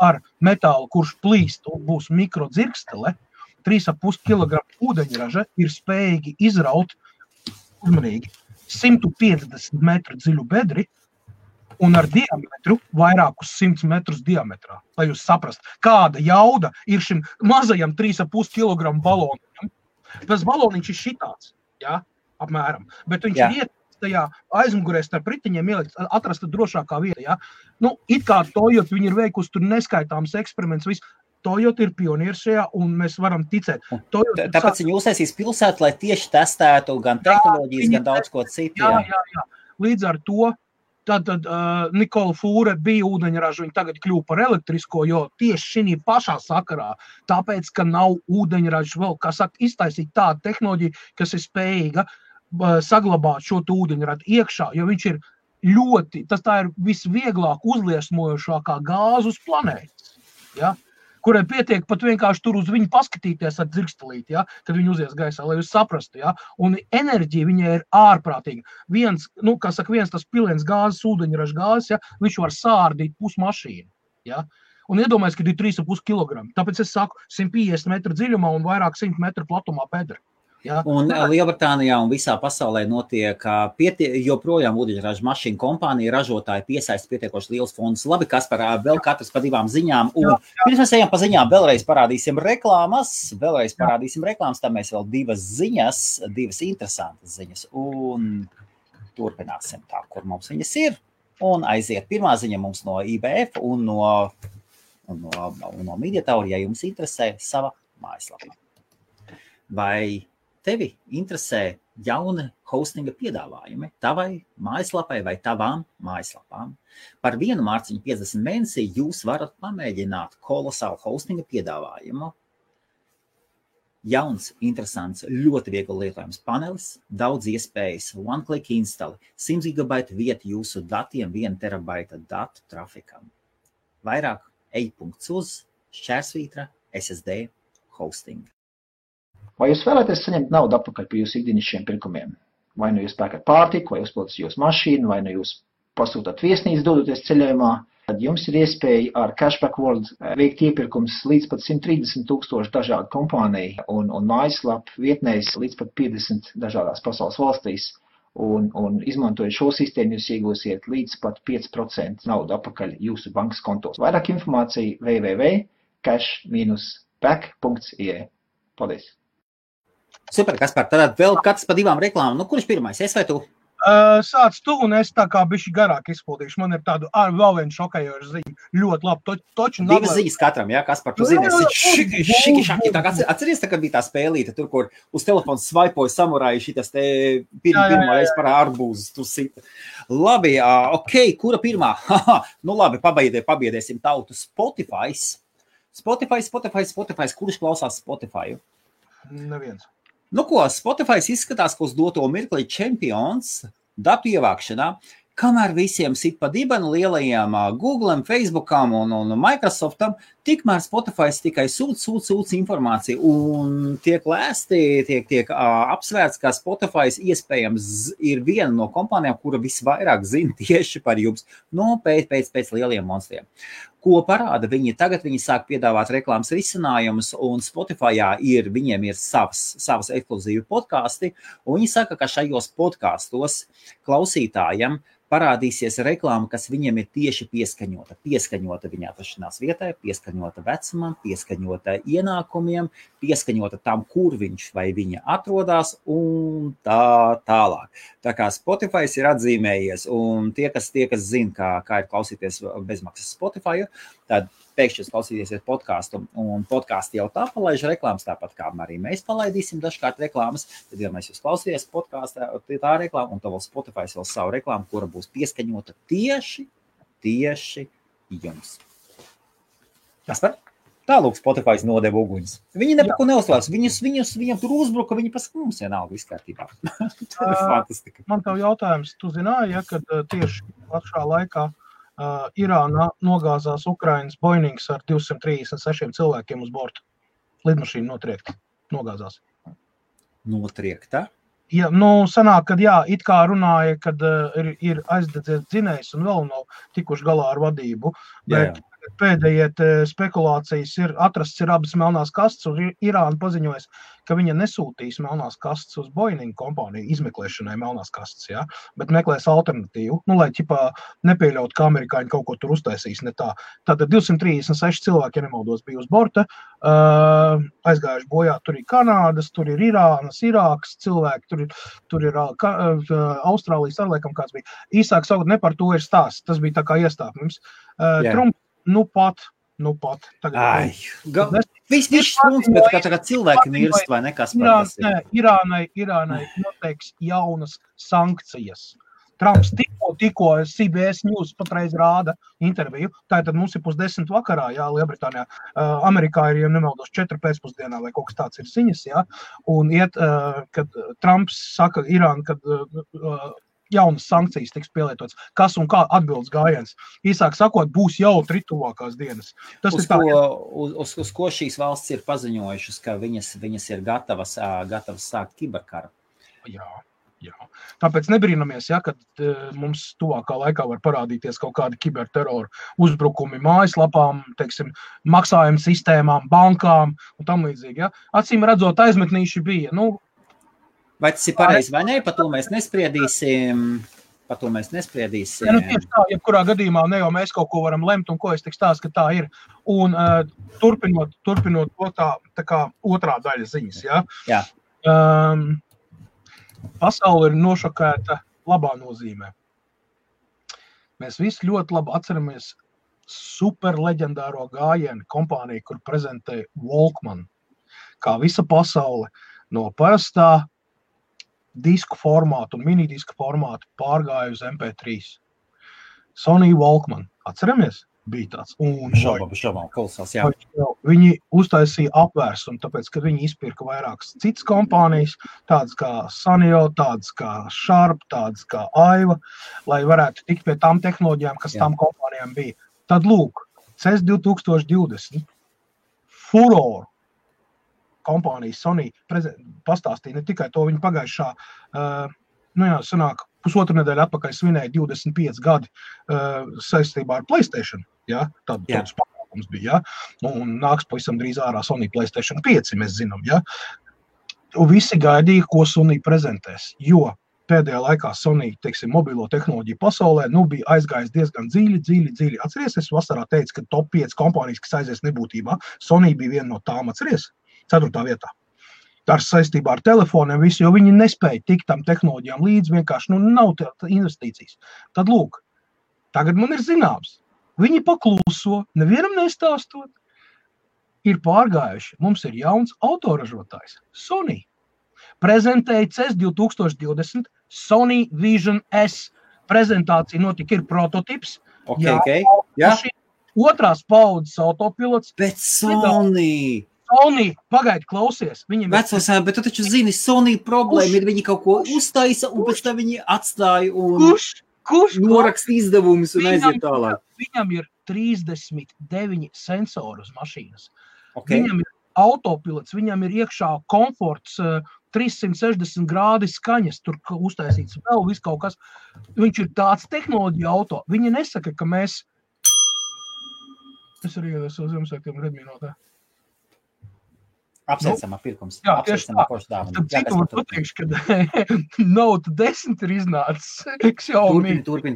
Speaker 2: ar metālu, kurš plīst un būs mikrodzirkstele, 3,5 kg ūdeņraža ir spējīgi izraut uzmanīgi 150 metru dziļu bedri, un ar diametru vairākus 100 metrus diametrā, lai jūs saprast, kāda jauda ir šim mazajam 3,5 kg balonam. Tas baloniņš ir šitāds, ja, apmēram, bet viņš ir ietas tajā aizmugurē starp ritiņiem ielikt, atrasta drošākā vieta, ja. Nu, it kā Toyota, viņi ir veikusi tur neskaitāms eksperiments, viss. Toyota ir pionieris šajā, un mēs varam ticēt.
Speaker 1: Tāpēc viņi uztaisīs pilsētu, lai tieši testētu gan tehnoloģijas, gan daudz ko citu.
Speaker 2: Jā. Līdz ar to Tad Nikola Fūre bija ūdeņraža, viņa tagad kļuva par elektrisko, jo tieši šī pašā sakarā, tāpēc, ka nav ūdeņraža vēl, kā saka, iztaisīt tādu tehnoloģiju, kas ir spējīga saglabāt šo ūdeņradu iekšā, jo viņš ir ļoti, tā ir visvieglāk uzliesmojošākā gāze uz planētas, ja? Kurai pietiek pat vienkārši tur uz viņu paskatīties ar dzirkstelīti, ja? Kad viņi uzies gaisā, lai jūs saprastu, ja? Un enerģija viņai ir ārprātīga. Viens tas pilens gāzes, ūdeņraža gāzes, ja? Viņš var sārdīt pusmašīnu, ja? Un iedomājies, ka ir 3,5 kg. Tāpēc es saku 150 metru dziļumā un vairāk 100 metru platumā bedra. Ja?
Speaker 1: Un Lielbritānijā un visā pasaulē notiek joprojām ūdeņraža mašīnu kompānija, ražotāji piesaista pietiekoši liels fondus. Labi, Kaspar, vēl katrs pa 2 ziņām. Un pirms mēs ejam pa ziņām, vēlreiz parādīsim reklāmas, tad mēs vēl 2 ziņas, 2 interesantas ziņas. Un turpināsim tā, kur mums viņas ir. Un aiziet. Pirmā ziņa mums no IBF un no Mediatour, ja jums interesē sava mājaslapa. Vai tevi interesē jauni hostinga piedāvājumi tavai mājaslapai vai tavām mājaslapām? Par 1 mārciņu 50 mēnesī jūs varat pamēģināt kolosālu hostinga piedāvājumu. Jauns, interesants, ļoti viegli lietojams panelis, daudz iespējas, one-click installi, 100 GB vieta jūsu datiem, 1 terabaita datu trafikam. Vairāk ej.uz/SSD hosting.
Speaker 3: Vai jūs vēlaties saņemt naudu atpakaļ par jūsu ikdienišķiem pirkumiem? Vai nu jūs pērkat pārtiku, vai uzpildat jūsu mašīnu, vai nu jūs pasūtat viesnīcu dodoties ceļojumā, tad jums ir iespēja ar Cashback World veikt iepirkums līdz pat 130,000 dažādu kompāniju un mājaslapu vietnēs līdz pat 50 dažādās pasaules valstīs. Un izmantojot šo sistēmu, jūs iegūsiet līdz pat 5% naudu atpakaļ jūsu bankas kontos. Vairāk informācija www.cash-back.ie. Paldies!
Speaker 1: Super, Kaspar, tad vēl katrs pa 2 reklāmām. Nu, kurš pirmais? Es vai tu?
Speaker 2: Sāc tu, un es tā kā bišķi garāk izpildīšu. Man ir tādu vēl vienu šokējošu ziņu. Ļoti labi.
Speaker 1: 2 ziņas katram, jā, Kaspar, tu zini, šiki. Atceries, kad bija tā spēlīte, tur, kur uz telefonu svaipoja samurāji šitas te pirmā reiz par arbūzu. Tu sita. Labi, ok, kura pirmā? Nu labi, pabiedēsim tautu. Spotify. Kurš klausās Spotify?
Speaker 2: Neviens.
Speaker 1: Nu ko, Spotify izskatās, ka uz doto mirkli čempions datu ievākšanā, kamēr visiem sit pa dibenu lielajiem Google'am, Facebookam un Microsoftam, tikmēr Spotify tikai sūc informāciju un tiek lēsti, tiek apsvērts, ka Spotify iespējams ir viena no kompānijām, kura visvairāk zina tieši par jums, no pēc lieliem monstriem. Ko parāda viņi? Tagad viņi sāk piedāvāt reklāmas risinājumus, un Spotifyā viņiem ir savas ekskluzīvi podkasti, un viņi saka, ka šajos podkastos klausītājiem parādīsies reklāma, kas viņiem ir tieši pieskaņota. Pieskaņota viņa atrašanās vietai, pieskaņota vecumam, pieskaņota ienākumiem, pieskaņota tam, kur viņš vai viņa atrodas, un tā tālāk. Tā kā Spotify ir atzīmējies, un tie, kas zina, kā ir klausīties bezmaksas Spotify, tad pēkšņi klausīties podkāstu, un podkāsti jau tā palaiž reklāmas, tāpat kā arī mēs palaidīsim dažkārt reklāmas, tad, ja mēs jūs klausīties podkāstā, tā reklāma, un tā vēl Spotify vēl savu reklāmu, kura būs pieskaņota tieši jums. Kas par? Tālūk Spotify nodeva uguņus. Viņi nepako neuzklās, viņiem tur uzbruka, viņi pasaka, mums vienalga viss kārtībā. Tā ir fantastika.
Speaker 2: Man tev jautājums, tu zināji, ja, kad tieši pašā laikā Irānā nogāzās Ukrainas Boeings ar 236 cilvēkiem uz borta. Lidmašīna nogāzās.
Speaker 1: Notriekta?
Speaker 2: Ja, sanāk, kad it kā runāja, kad ir aizdedzies dzinējs un vēl nav tikuši galā ar vadību, bet pēdējie spekulācijas atrasts ir abas melnās kastes, un Irāna paziņojas, ka viņa nesūtīs melnās kastes uz Boeing kompāniju izmeklēšanai melnās kastes, ja? Bet meklēs alternatīvu, lai nepieļaut, ka amerikāņi kaut ko tur uztaisīs, ne tā. Tātad 236 cilvēki, ja nemaldos, bija uz borta, aizgājuši bojā, tur ir Kanādas, tur ir Irānas, Irākas cilvēki, tur ir Austrālijas, arliekam kāds bija. Īsāk sakot, ne par to ir stāsts, tas bija tā kā iestāpums. Trumps, nu pat.
Speaker 1: Viss stunds, bet kā tagad cilvēki mirst vai nekas par tas ir.
Speaker 2: Irānai noteiks jaunas sankcijas. Trumps tikko CBS News patreiz rāda interviju. Tātad mums ir 9:30 vakarā, Lielbritānijā. Amerikā ir, ja nemaldos, 4 pēcpusdienā vai kaut kas tāds ir ziņas, un kad Trumps saka Irāna, kad jaunas sankcijas tiks pielietotas. Kas un kā atbildes gājiens. Īsāk sakot, būs jau tuvākās dienas.
Speaker 1: Uz ko šīs valsts ir paziņojušas, ka viņas ir gatavas sākt kiberkaru?
Speaker 2: Jā. Tāpēc nebrīnamies, kad mums tuvākā laikā var parādīties kaut kādi kiberterora uzbrukumi mājaslapām, teiksim, maksājuma sistēmām, bankām un tam līdzīgi. Ja? Acīm redzot, aizmetnīši bija.
Speaker 1: Vai tas ir pareizi vai ne? Par to mēs nespriedīsim.
Speaker 2: Tieši tā, jebkurā gadījumā ne jau mēs kaut ko varam lemt, un ko es tik stāstu, ka tā ir. Un turpinot to tā kā otrā daļa ziņas.
Speaker 1: Jā.
Speaker 2: Pasaule ir nošokēta labā nozīmē. Mēs visi ļoti labi atceramies super leģendāro gājienu kompāniju, kur prezentēja Walkman, kā visa pasaule no parastā disku formātu un minidisku formātu pārgāja uz MP3. Sony Walkman. Atceramies? Bija tāds.
Speaker 1: Šaubām, kolosāls, jā.
Speaker 2: Viņi uztaisīja apvērsumu, tāpēc, ka viņi izpirka vairākas citas kompānijas, tādas kā Sanyo, tādas kā Sharp, tādas kā Aiva, lai varētu tikt pie tām tehnoloģijām, kas tām kompānijām bija. Tad lūk, CES 2020 Furor kompānijas Sony pastāstīja ne tikai to, viņi pagājušā, sanāk, pusotru nedēļu atpakaļ svinēja 25 gadi saistībā ar PlayStation. Ja? Tāds pasākums bija. Ja? Un nāks pavisam drīz ārā Sony PlayStation 5, mēs zinām. Ja? Un visi gaidīja, ko Sony prezentēs, jo pēdējā laikā Sony, teiksim, mobilo tehnoloģiju pasaulē, bija aizgājis diezgan dziļi. Atceries, es vasarā teicu, ka top 5 kompānijas, kas aizies nebūtībā, Sony bija viena no tām, atceries, 4. vietā. Ar saistībā ar telefoniem visu, jo viņi nespēja tikt tam tehnoloģijām līdz, vienkārši nav investīcijas. Tad lūk, tagad man ir zināms, viņi pakluso, nevienam nestāstot, ir pārgājuši. Mums ir jauns autoražotājs, Sony. Prezentēja CES 2020 Sony Vision S. Prezentācija notika, ir prototips. Otrās paudzes autopilots.
Speaker 1: Bet Sony,
Speaker 2: pagaidi, klausies.
Speaker 1: Vecos, bet tu taču zini, Sony problēma ir, viņi kaut ko uztaisa, un pēc tam viņi atstāja un norakst izdevumus un aiziet tālāk.
Speaker 2: Viņam ir 39 sensori uz mašīnas.
Speaker 1: Okay.
Speaker 2: Viņam ir autopilots, viņam ir iekšā komforts, 360 grādi skaņas, tur uztaisīts vēl viss kaut kas. Viņš ir tāds tehnoloģija auto. Viņi nesaka, ka mēs Es arī iedodu savu Ziemassvētkiem Redmi Note.
Speaker 1: Apsveicamā pirkums.
Speaker 2: Jā, tieši tā. Tad citu var pateikšu, ka Note 10 ir iznācis Xiaomi.
Speaker 1: Turpin.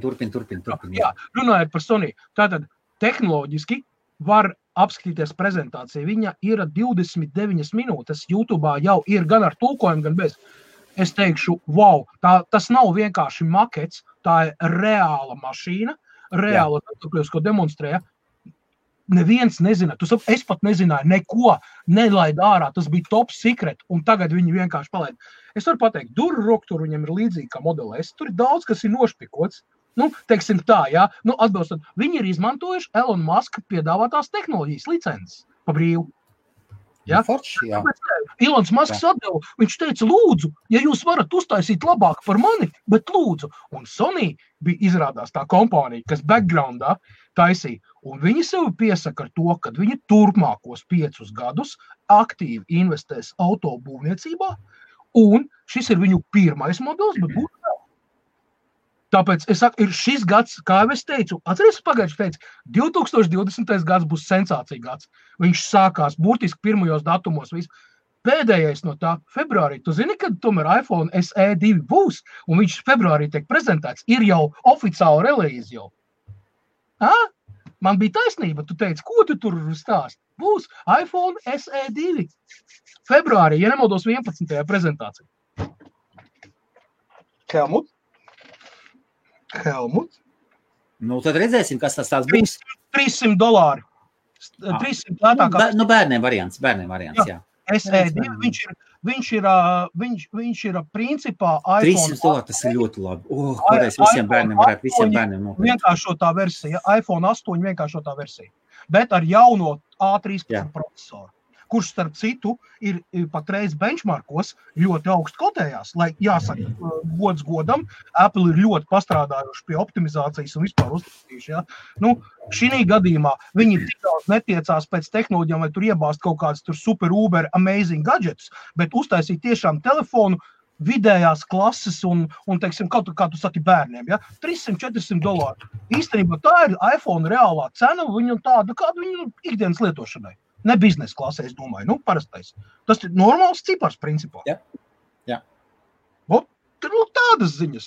Speaker 2: Jā, runājot par Sony. Tātad tehnoloģiski var apskatīties prezentāciju. Viņa ir 29 minūtes. YouTube'ā jau ir gan ar tulkojumu, gan bez. Es teikšu, wow, tas nav vienkārši makets, tā ir reāla mašīna, reāla, ko demonstrēja. Neviens nezina, es pat nezināju neko, nelaid ārā, tas bija top secret, un tagad viņi vienkārši palaid. Es varu pateikt, duru roktur viņam ir līdzīgi kā Model S, tur ir daudz, kas ir nošpikots, teiksim tā, jā, atbilstot, viņi ir izmantojuši Elon Musk piedāvātās tehnoloģijas licences pa brīvu. Ja?
Speaker 1: Jā.
Speaker 2: Elons Musks atdeva, viņš teica, lūdzu, ja jūs varat uztaisīt labāk par mani, bet lūdzu. Un Sony bija izrādās tā kompānija, kas backgroundā taisīja. Un viņi sev piesaka ar to, ka viņi turpmākos 5 gadus aktīvi investēs autobūvniecībā, un šis ir viņu pirmais modelis, bet būtu vēl. Tāpēc es saku, ir šis gads, kā jau es teicu, atceries pagājuši teicu, 2020. gads būs sensācija gads. Viņš sākās burtiski pirmajos datumos. Pēdējais no tā februārī. Tu zini, kad tomēr iPhone SE 2 būs, un viņš februārī tiek prezentēts, ir jau oficiāli relīze jau. Man bija taisnība, tu teici, ko tu tur stāst? Būs iPhone SE 2. Februārī, ja nemaldos 11. prezentācija. Helmut?
Speaker 1: Tad redzēsim, kas tas tāds būs.
Speaker 2: $300. 300 lētākās.
Speaker 1: Bērniem variants, jā.
Speaker 2: SE2, viņš ir principā iPhone.
Speaker 1: $300, tas ir ļoti labi. Kādreiz visiem bērniem nopirkt.
Speaker 2: Vienkāršotā versija, iPhone 8 vienkāršotā versija, bet ar jauno A13 procesoru, kurš starp citu ir patreiz benchmarkos ļoti augstu kotējās, lai jāsaka, gods godam, Apple ir ļoti pastrādājuši pie optimizācijas un vispār uztaisījuši, ja. Šī gadījumā viņi tik daudz netiecās pēc tehnoloģijām, vai tur iebāzt kaut kāds tur super uber amazing gadgets, bet uztaisīt tiešām telefonu vidējās klases un teiksim, kā tu saki bērniem, ja, $300-400. Īstenībā tā ir iPhone reālā cena, viņu tāda, kāda viņu ikdienas lietošanai. Ne biznesa klasē, es domāju, parastais. Tas ir normāls cipars, principā.
Speaker 1: Jā.
Speaker 2: Tādas ziņas,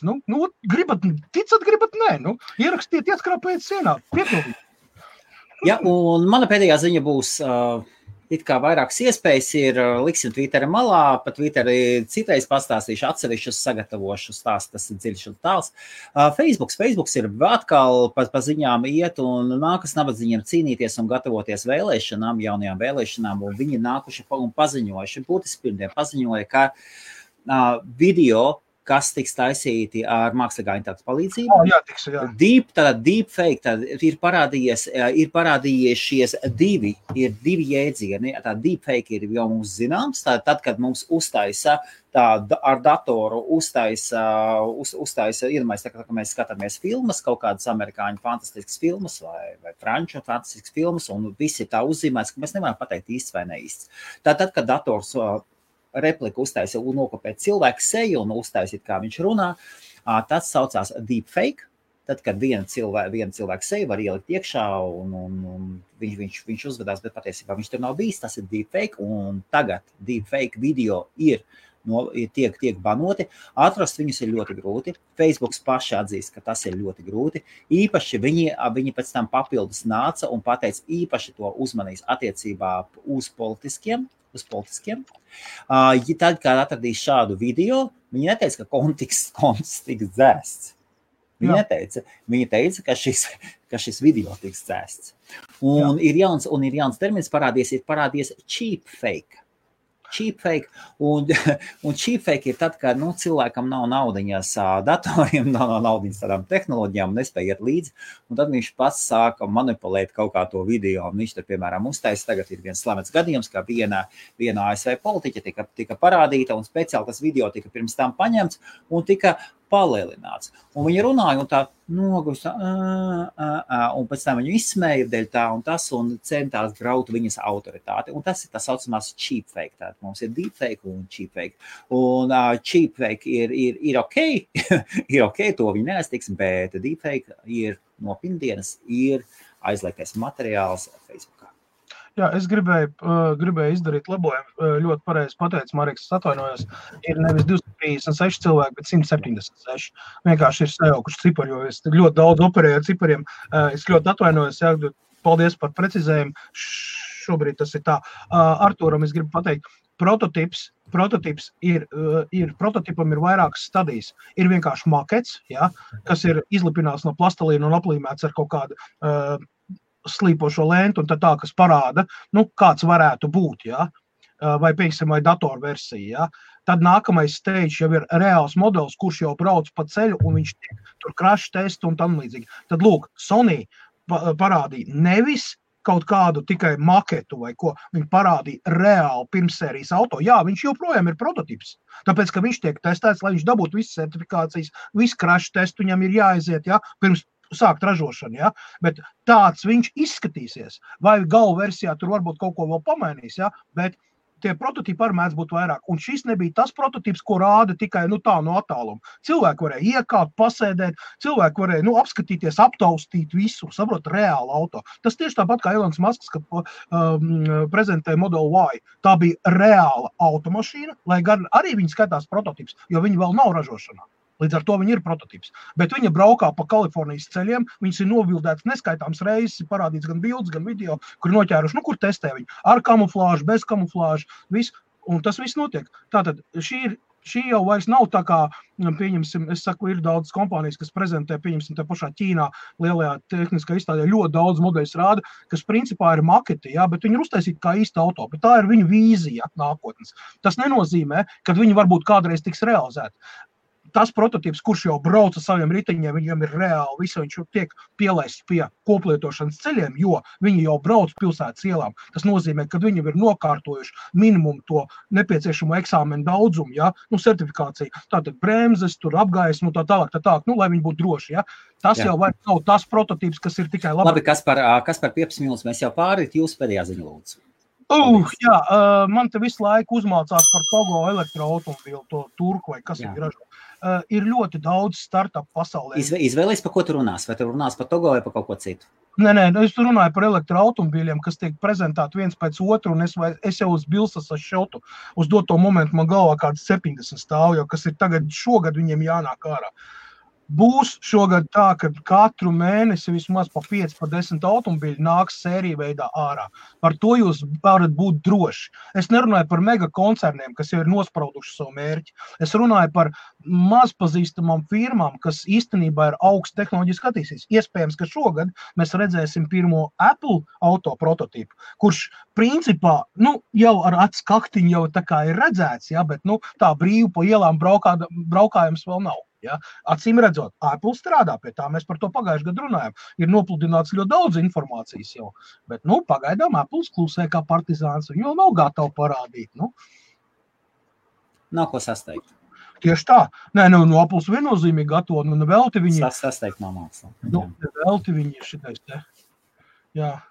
Speaker 2: gribat ticat, gribat nē, ierakstiet, ieskrāpējiet sienā, piepildīt.
Speaker 1: Jā, un mana pēdējā ziņa būs, it kā vairākas iespējas ir, liksim Twitterī malā, pa Twitterī citreiz pastāstīšu atsevišķus sagatavošu stāstu, tas ir dziļš un tāls. Facebooks ir atkal pa ziņām iet un nākas nabadzīņiem cīnīties un gatavoties vēlēšanām, jaunajām vēlēšanām, un viņi nākuši un paziņojuši, būtiski pirmdien paziņoja, ka video, kas tiks taisīti ar mākslīgā intelekta palīdzību. Deepfake, ir parādījušies divi jēdzieni. Tā deepfake ir jau mums zināms, tad, kad mums uztaisa ar datoru uztaisa, iedomājies, tā, ka mēs skatāmies filmas, kaut kādas amerikāņu fantastiskas filmas vai franču fantastiskas filmas, un visi tā uzzīmēs, ka mēs nevaram pateikt īsts vai neīsts. Tad, kad dators repliku uztaisa un nokopēt cilvēku seju un uztaisīt, kā viņš runā, tas saucās deepfake. Tad, kad viena cilvēka seju var ielikt iekšā un viņš uzvedās, bet patiesībā viņš tur nav bijis, tas ir deepfake, un tagad deepfake video tiek banoti. Atrast viņus ir ļoti grūti. Facebooks paši atzīst, ka tas ir ļoti grūti. Īpaši viņi pēc tam papildus nāca un pateica, īpaši to uzmanīs attiecībā uz politiskiem. Tad, kad atradīs šādu video, viņi neteica, ka konts tiks dzēsts. Viņa teica, ka šis video tiks dzēsts. Un ir jauns termins parādies cheap fake, un cheap fake ir tad, kad cilvēkam nav naudiņas datoriem, nav naudiņas tādām tehnoloģijām, nespēja iet līdzi, un tad viņš pats sāka manipulēt kaut kā to video, un viņš tur, piemēram, uztaisa, tagad ir viens slavens gadījums, kā viena ASV politiķa tika parādīta, un speciāli tas video tika pirms tam paņemts, un tika palielināts. Un viņi runāja un tā noguši, un pēc tam viņu izsmēja dēļ tā un tas, un centās graut viņas autoritāti. Un tas ir tas saucamās cheap fake. Tātad mums ir deepfake un cheap fake. Un cheap fake ir ok, ir ok, to viņi neaiztiks, bet deepfake ir no pirmdienas ir aizliegtais materiāls Facebookā.
Speaker 2: Jā, es gribēju izdarīt labojumu. Ļoti pareizi pateicu, Mareks, es atvainojos. Ir nevis 236 cilvēki, bet 176. Vienkārši ir sajaukuši cipari, jo es ļoti daudz operēju ar cipariem. Es ļoti atvainojos, jā, paldies par precizējumu. Šobrīd tas ir tā. Artūram es gribu pateikt, prototips prototipam ir vairākas stadijas. Ir vienkārši makets, jā, kas ir izlipināts no plastelīna un aplīmēts ar kaut kādu slīpošo lentu un tā, kas parāda, kāds varētu būt, ja? Vai, piemēram, vai datorversija. Ja? Tad nākamais stage jau ir reāls modelis, kurš jau brauc pa ceļu un viņš tur crash testu un tam līdzīgi. Tad, lūk, Sony parādīja nevis kaut kādu tikai maketu vai ko, viņi parādīja reāli pirmsērijas auto. Jā, viņš joprojām ir prototips, tāpēc, ka viņš tiek testēts, lai viņš dabūtu visas certifikācijas, visu crash testu viņam ir jāaiziet, ja? Pirms sākt ražošanu, ja? Bet tāds viņš izskatīsies. Vai galvu versijā tur varbūt kaut ko vēl pamainīs, ja? Bet tie prototipi arī mēdz būt vairāk. Un šis nebija tas prototips, ko rāda tikai tā no attāluma. Cilvēki varēja iekāpt, pasēdēt, cilvēki varēja apskatīties, aptaustīt visu, saprot, reālu auto. Tas tieši tāpat kā Elons Musks, kad prezentēja Model Y. Tā bija reāla automašīna, lai gan arī viņi skatās prototips, jo viņi vēl nav ražošanā. Līdz ar to viņi ir prototips. Bet viņa braukā pa Kalifornijas ceļiem, viņas ir novildētas neskaitāms reizes, parādīts gan bildes, gan video, kur noķēruši, kur testē viņi. Ar kamuflāžu, bez kamuflāžu, viss. Un tas viss notiek. Tātad šī jau vairs nav tā kā, pieņemsim, es saku, ir daudz kompānijas, kas prezentē, pieņemsim, tā pašā Ķīnā, lielajā tehniskā izstādē, ļoti daudz modeļus rāda, kas principā ir maketi, jā, bet viņi ir uztaisīti kā īsta auto, bet tā ir viņu vīzija nākotnes. Tas nenozīmē, ka viņi varbūt kādreiz tiks realizēti. Tas prototips, kurš jau brauc ar saviem riteņiem, viņam ir reāli, viņš tiek pielaists pie koplietošanas ceļiem, jo viņi jau brauc pilsētas ielām. Tas nozīmē, ka viņi ir nokārtojuši minimumu to nepieciešamo eksāmenu daudzumu, ja? Certifikāciju. Tātad bremzes, tur apgaismu, tā tālāk, lai viņi būtu droši. Ja? Tas jau vairs nav tas prototips, kas ir tikai labi.
Speaker 1: Labi, kas par 15 minūtes mēs jau pārīt, jūs pēdējā ziņa lūdzu.
Speaker 2: Jā, man te visu laiku uzmācās par Togo elektroautomobīlu, to turku vai kas viņi ražo. Ir ļoti daudz startup pasaulē.
Speaker 1: Izvēlies, par ko tu runās? Vai tu runās par Togo vai par kaut ko citu?
Speaker 2: Nē, es runāju par elektroautomobīļiem, kas tiek prezentēti viens pēc otru, un es jau uz bilsas šotu. Uz doto momentu man galvā kāds 70 stāv, jo kas ir šogad viņiem jānāk ārā. Būs šogad tā, ka katru mēnesi vismaz pa 5, pa 10 automobīļi nāks sēriju veidā ārā. Par to jūs varat būt droši. Es nerunāju par mega koncerniem, kas jau ir nosprauduši savu mērķi. Es runāju par mazpazīstamām firmām, kas īstenībā ir augsts tehnoloģiski attīstīs. Iespējams, ka šogad mēs redzēsim pirmo Apple auto prototipu, kurš principā, jau ar atskaktiņu jau tā kā ir redzēts, ja, bet tā brīvi pa ielām braukājums vēl nav. Ja? Acīm redzot, Apple strādā pie tā, mēs par to pagājuši gadu runājam. Ir nopludināts ļoti daudz informācijas jau, bet pagaidām Apple klusē kā partizāns, viņi vēl nav gatavi parādīt.
Speaker 1: Nav ko sasteigt.
Speaker 2: Tieši tā. Nē, Apple viennozīmīgi gatavo, velti viņi.
Speaker 1: Sasteigt nav māksla.
Speaker 2: Velti viņi ir šitais te. Jā.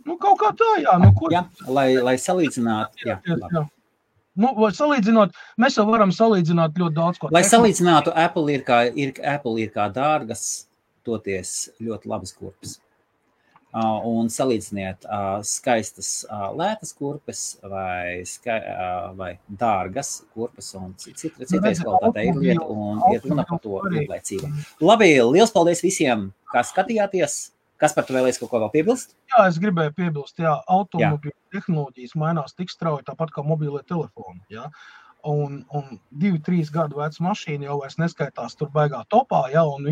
Speaker 2: Kaut kā tā, jā.
Speaker 1: Jā, lai salīdzinātu. Jā.
Speaker 2: Vai salīdzinot, mēs jau varam salīdzināt ļoti daudz ko.
Speaker 1: Lai salīdzinātu, Apple ir kā dārgas, toties ļoti labas kurpes. Un salīdziniet skaistas lētas kurpes vai dārgas kurpes un citais kvalitātei ir lieta un iet runa par to ilglaicīgi. Labi, liels paldies visiem, kā skatījāties. Kas par to vēlēs kaut ko vēl piebilst?
Speaker 2: Jā, es gribēju piebilst, automobīļu tehnoloģijas mainās tik strauji, tāpat kā mobīlie telefoni, jā. Un 2-3 gadu veca mašīna jau vairs neskaitās tur baigā topā, un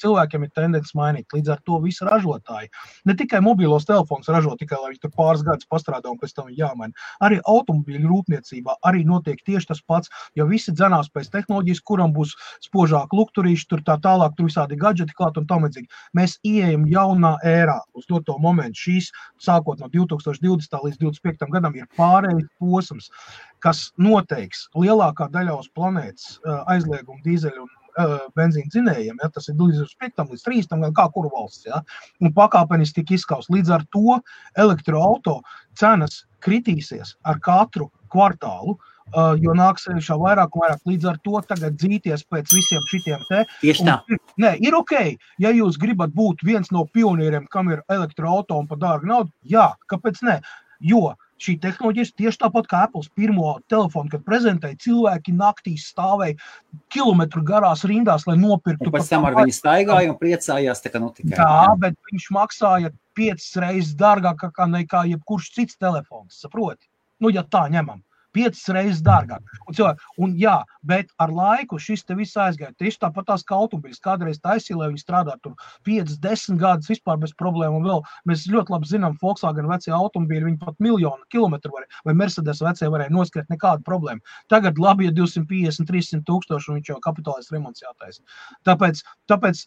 Speaker 2: cilvēkiem ir tendence mainīt. Līdz ar to visi ražotāji. Ne tikai mobīlos telefons ražo, tikai lai viņi tur pāris gadus pastrādā un pēc tam jāmaina. Arī automobīļu rūpniecībā arī notiek tieši tas pats, jo visi dzenās pēc tehnoloģijas, kuram būs spožāk lukturīši, tur tā tālāk, tur visādi gadžeti klāt un tam līdzīgi. Mēs ieejam jaunā ērā uz to momentu. Šīs, sākot no 2020. līdz 2025. gadam, ir pārējais posms, kas noteiks lielākā daļā uz planētas aizliegumu dīzeļu un benzīnu dzinējiem, ja, tas ir līdz 5. līdz 30. gan kā kuru valsts, ja, un pakāpeniski tik izskaust. Līdz ar to elektroauto cenas kritīsies ar katru kvartālu, jo nāks šā vairāk un vairāk. Līdz ar to tagad dzīties pēc visiem šitiem te.
Speaker 1: Tieši tā.
Speaker 2: Nē, ir ok, ja jūs gribat būt viens no pionieriem, kam ir elektroauto un pa dārgu naudu, jā, kāpēc ne? Jo šī tehnoloģija tieši tāpat kā Apples pirmo telefonu, kad prezentēja, cilvēki naktīs stāvēja kilometru garās rindās, lai nopirktu.
Speaker 1: Un pēc tam ar viņu staigāja un priecājās, tā kā tikai.
Speaker 2: Jā, bet viņš maksāja 5 reizes dārgāk nekā jebkurš cits telefons, saproti? Nu, ja tā ņemam. 5 reizes dārgāk. Un jā, bet ar laiku šis te viss aizgāja. Tieši tāpat tās kā automobiļas. Kādreiz taisīja, lai viņi strādā tur 5-10 gadus vispār bez problēmu. Un vēl mēs ļoti labi zinām, Volkswagen vecie automobīļi, viņi pat 1 000 000 kilometru varēja, vai Mercedes vecie varēja noskriet nekādu problēmu. Tagad labi, ja 250-300 tūkstoši un viņš jau kapitālais remonts jātaisa. Tāpēc,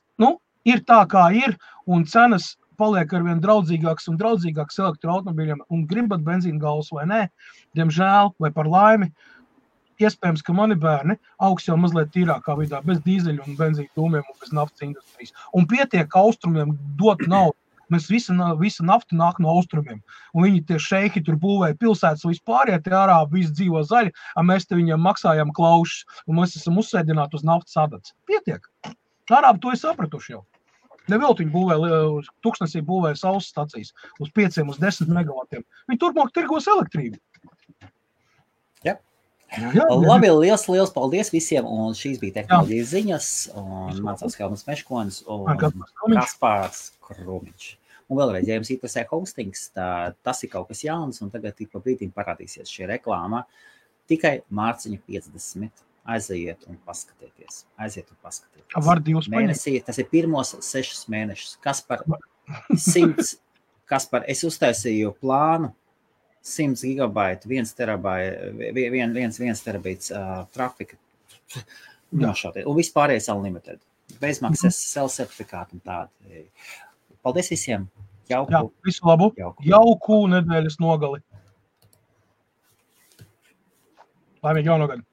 Speaker 2: ir tā, kā ir, un cenas paliek arvien draudzīgāks un draudzīgāks elektroautomobīļiem un gribat benzīna galvas vai nē, diemžēl vai par laimi, iespējams, ka mani bērni augs jau mazliet tīrākā vidā, bez dīzeļu un benzīna dūmiem un bez naftas industrijas. Un pietiek austrumiem dot naudu. Mēs visa nafta nāk no austrumiem. Un viņi tie šeihi tur būvēja pilsētas vispār, ja tie arābi visi dzīvo zaļi, un mēs te viņiem maksājam klaušus, un mēs esam uzsēdināti uz naftas adats. Pietiek. Arābi to ir sapratuši jau. Nevēl viņi būvēja, Tuksnesī būvēja saules stacijas uz 5-10 megavatiem. Viņi turpmāk tirgos elektrību.
Speaker 1: Jā. Labi, liels paldies visiem, un šīs bija tehnoloģijas ziņas, un mācās Helmuts Meškonis un Kaspārs Krumiņš. Un vēlreiz, ja jums interesē hostings, tas ir kaut kas jauns, un tagad tik pa brīdim parādīsies šī reklāma. Tikai mārciņa 50. Aiziet un paskatieties.
Speaker 2: Var 2
Speaker 1: mēnesī, tas ir pirmos 6 mēnešus. Kaspar, es uztaisīju plānu 100 gigabaitu, 1 terabīts trafika. Un vispārējais unlimited. Bezmaksas self-certifikātu un tādi. Paldies visiem. Jauku.
Speaker 2: Visu labu. Jauku nedēļas nogali. Laimīgi jaunu gadu.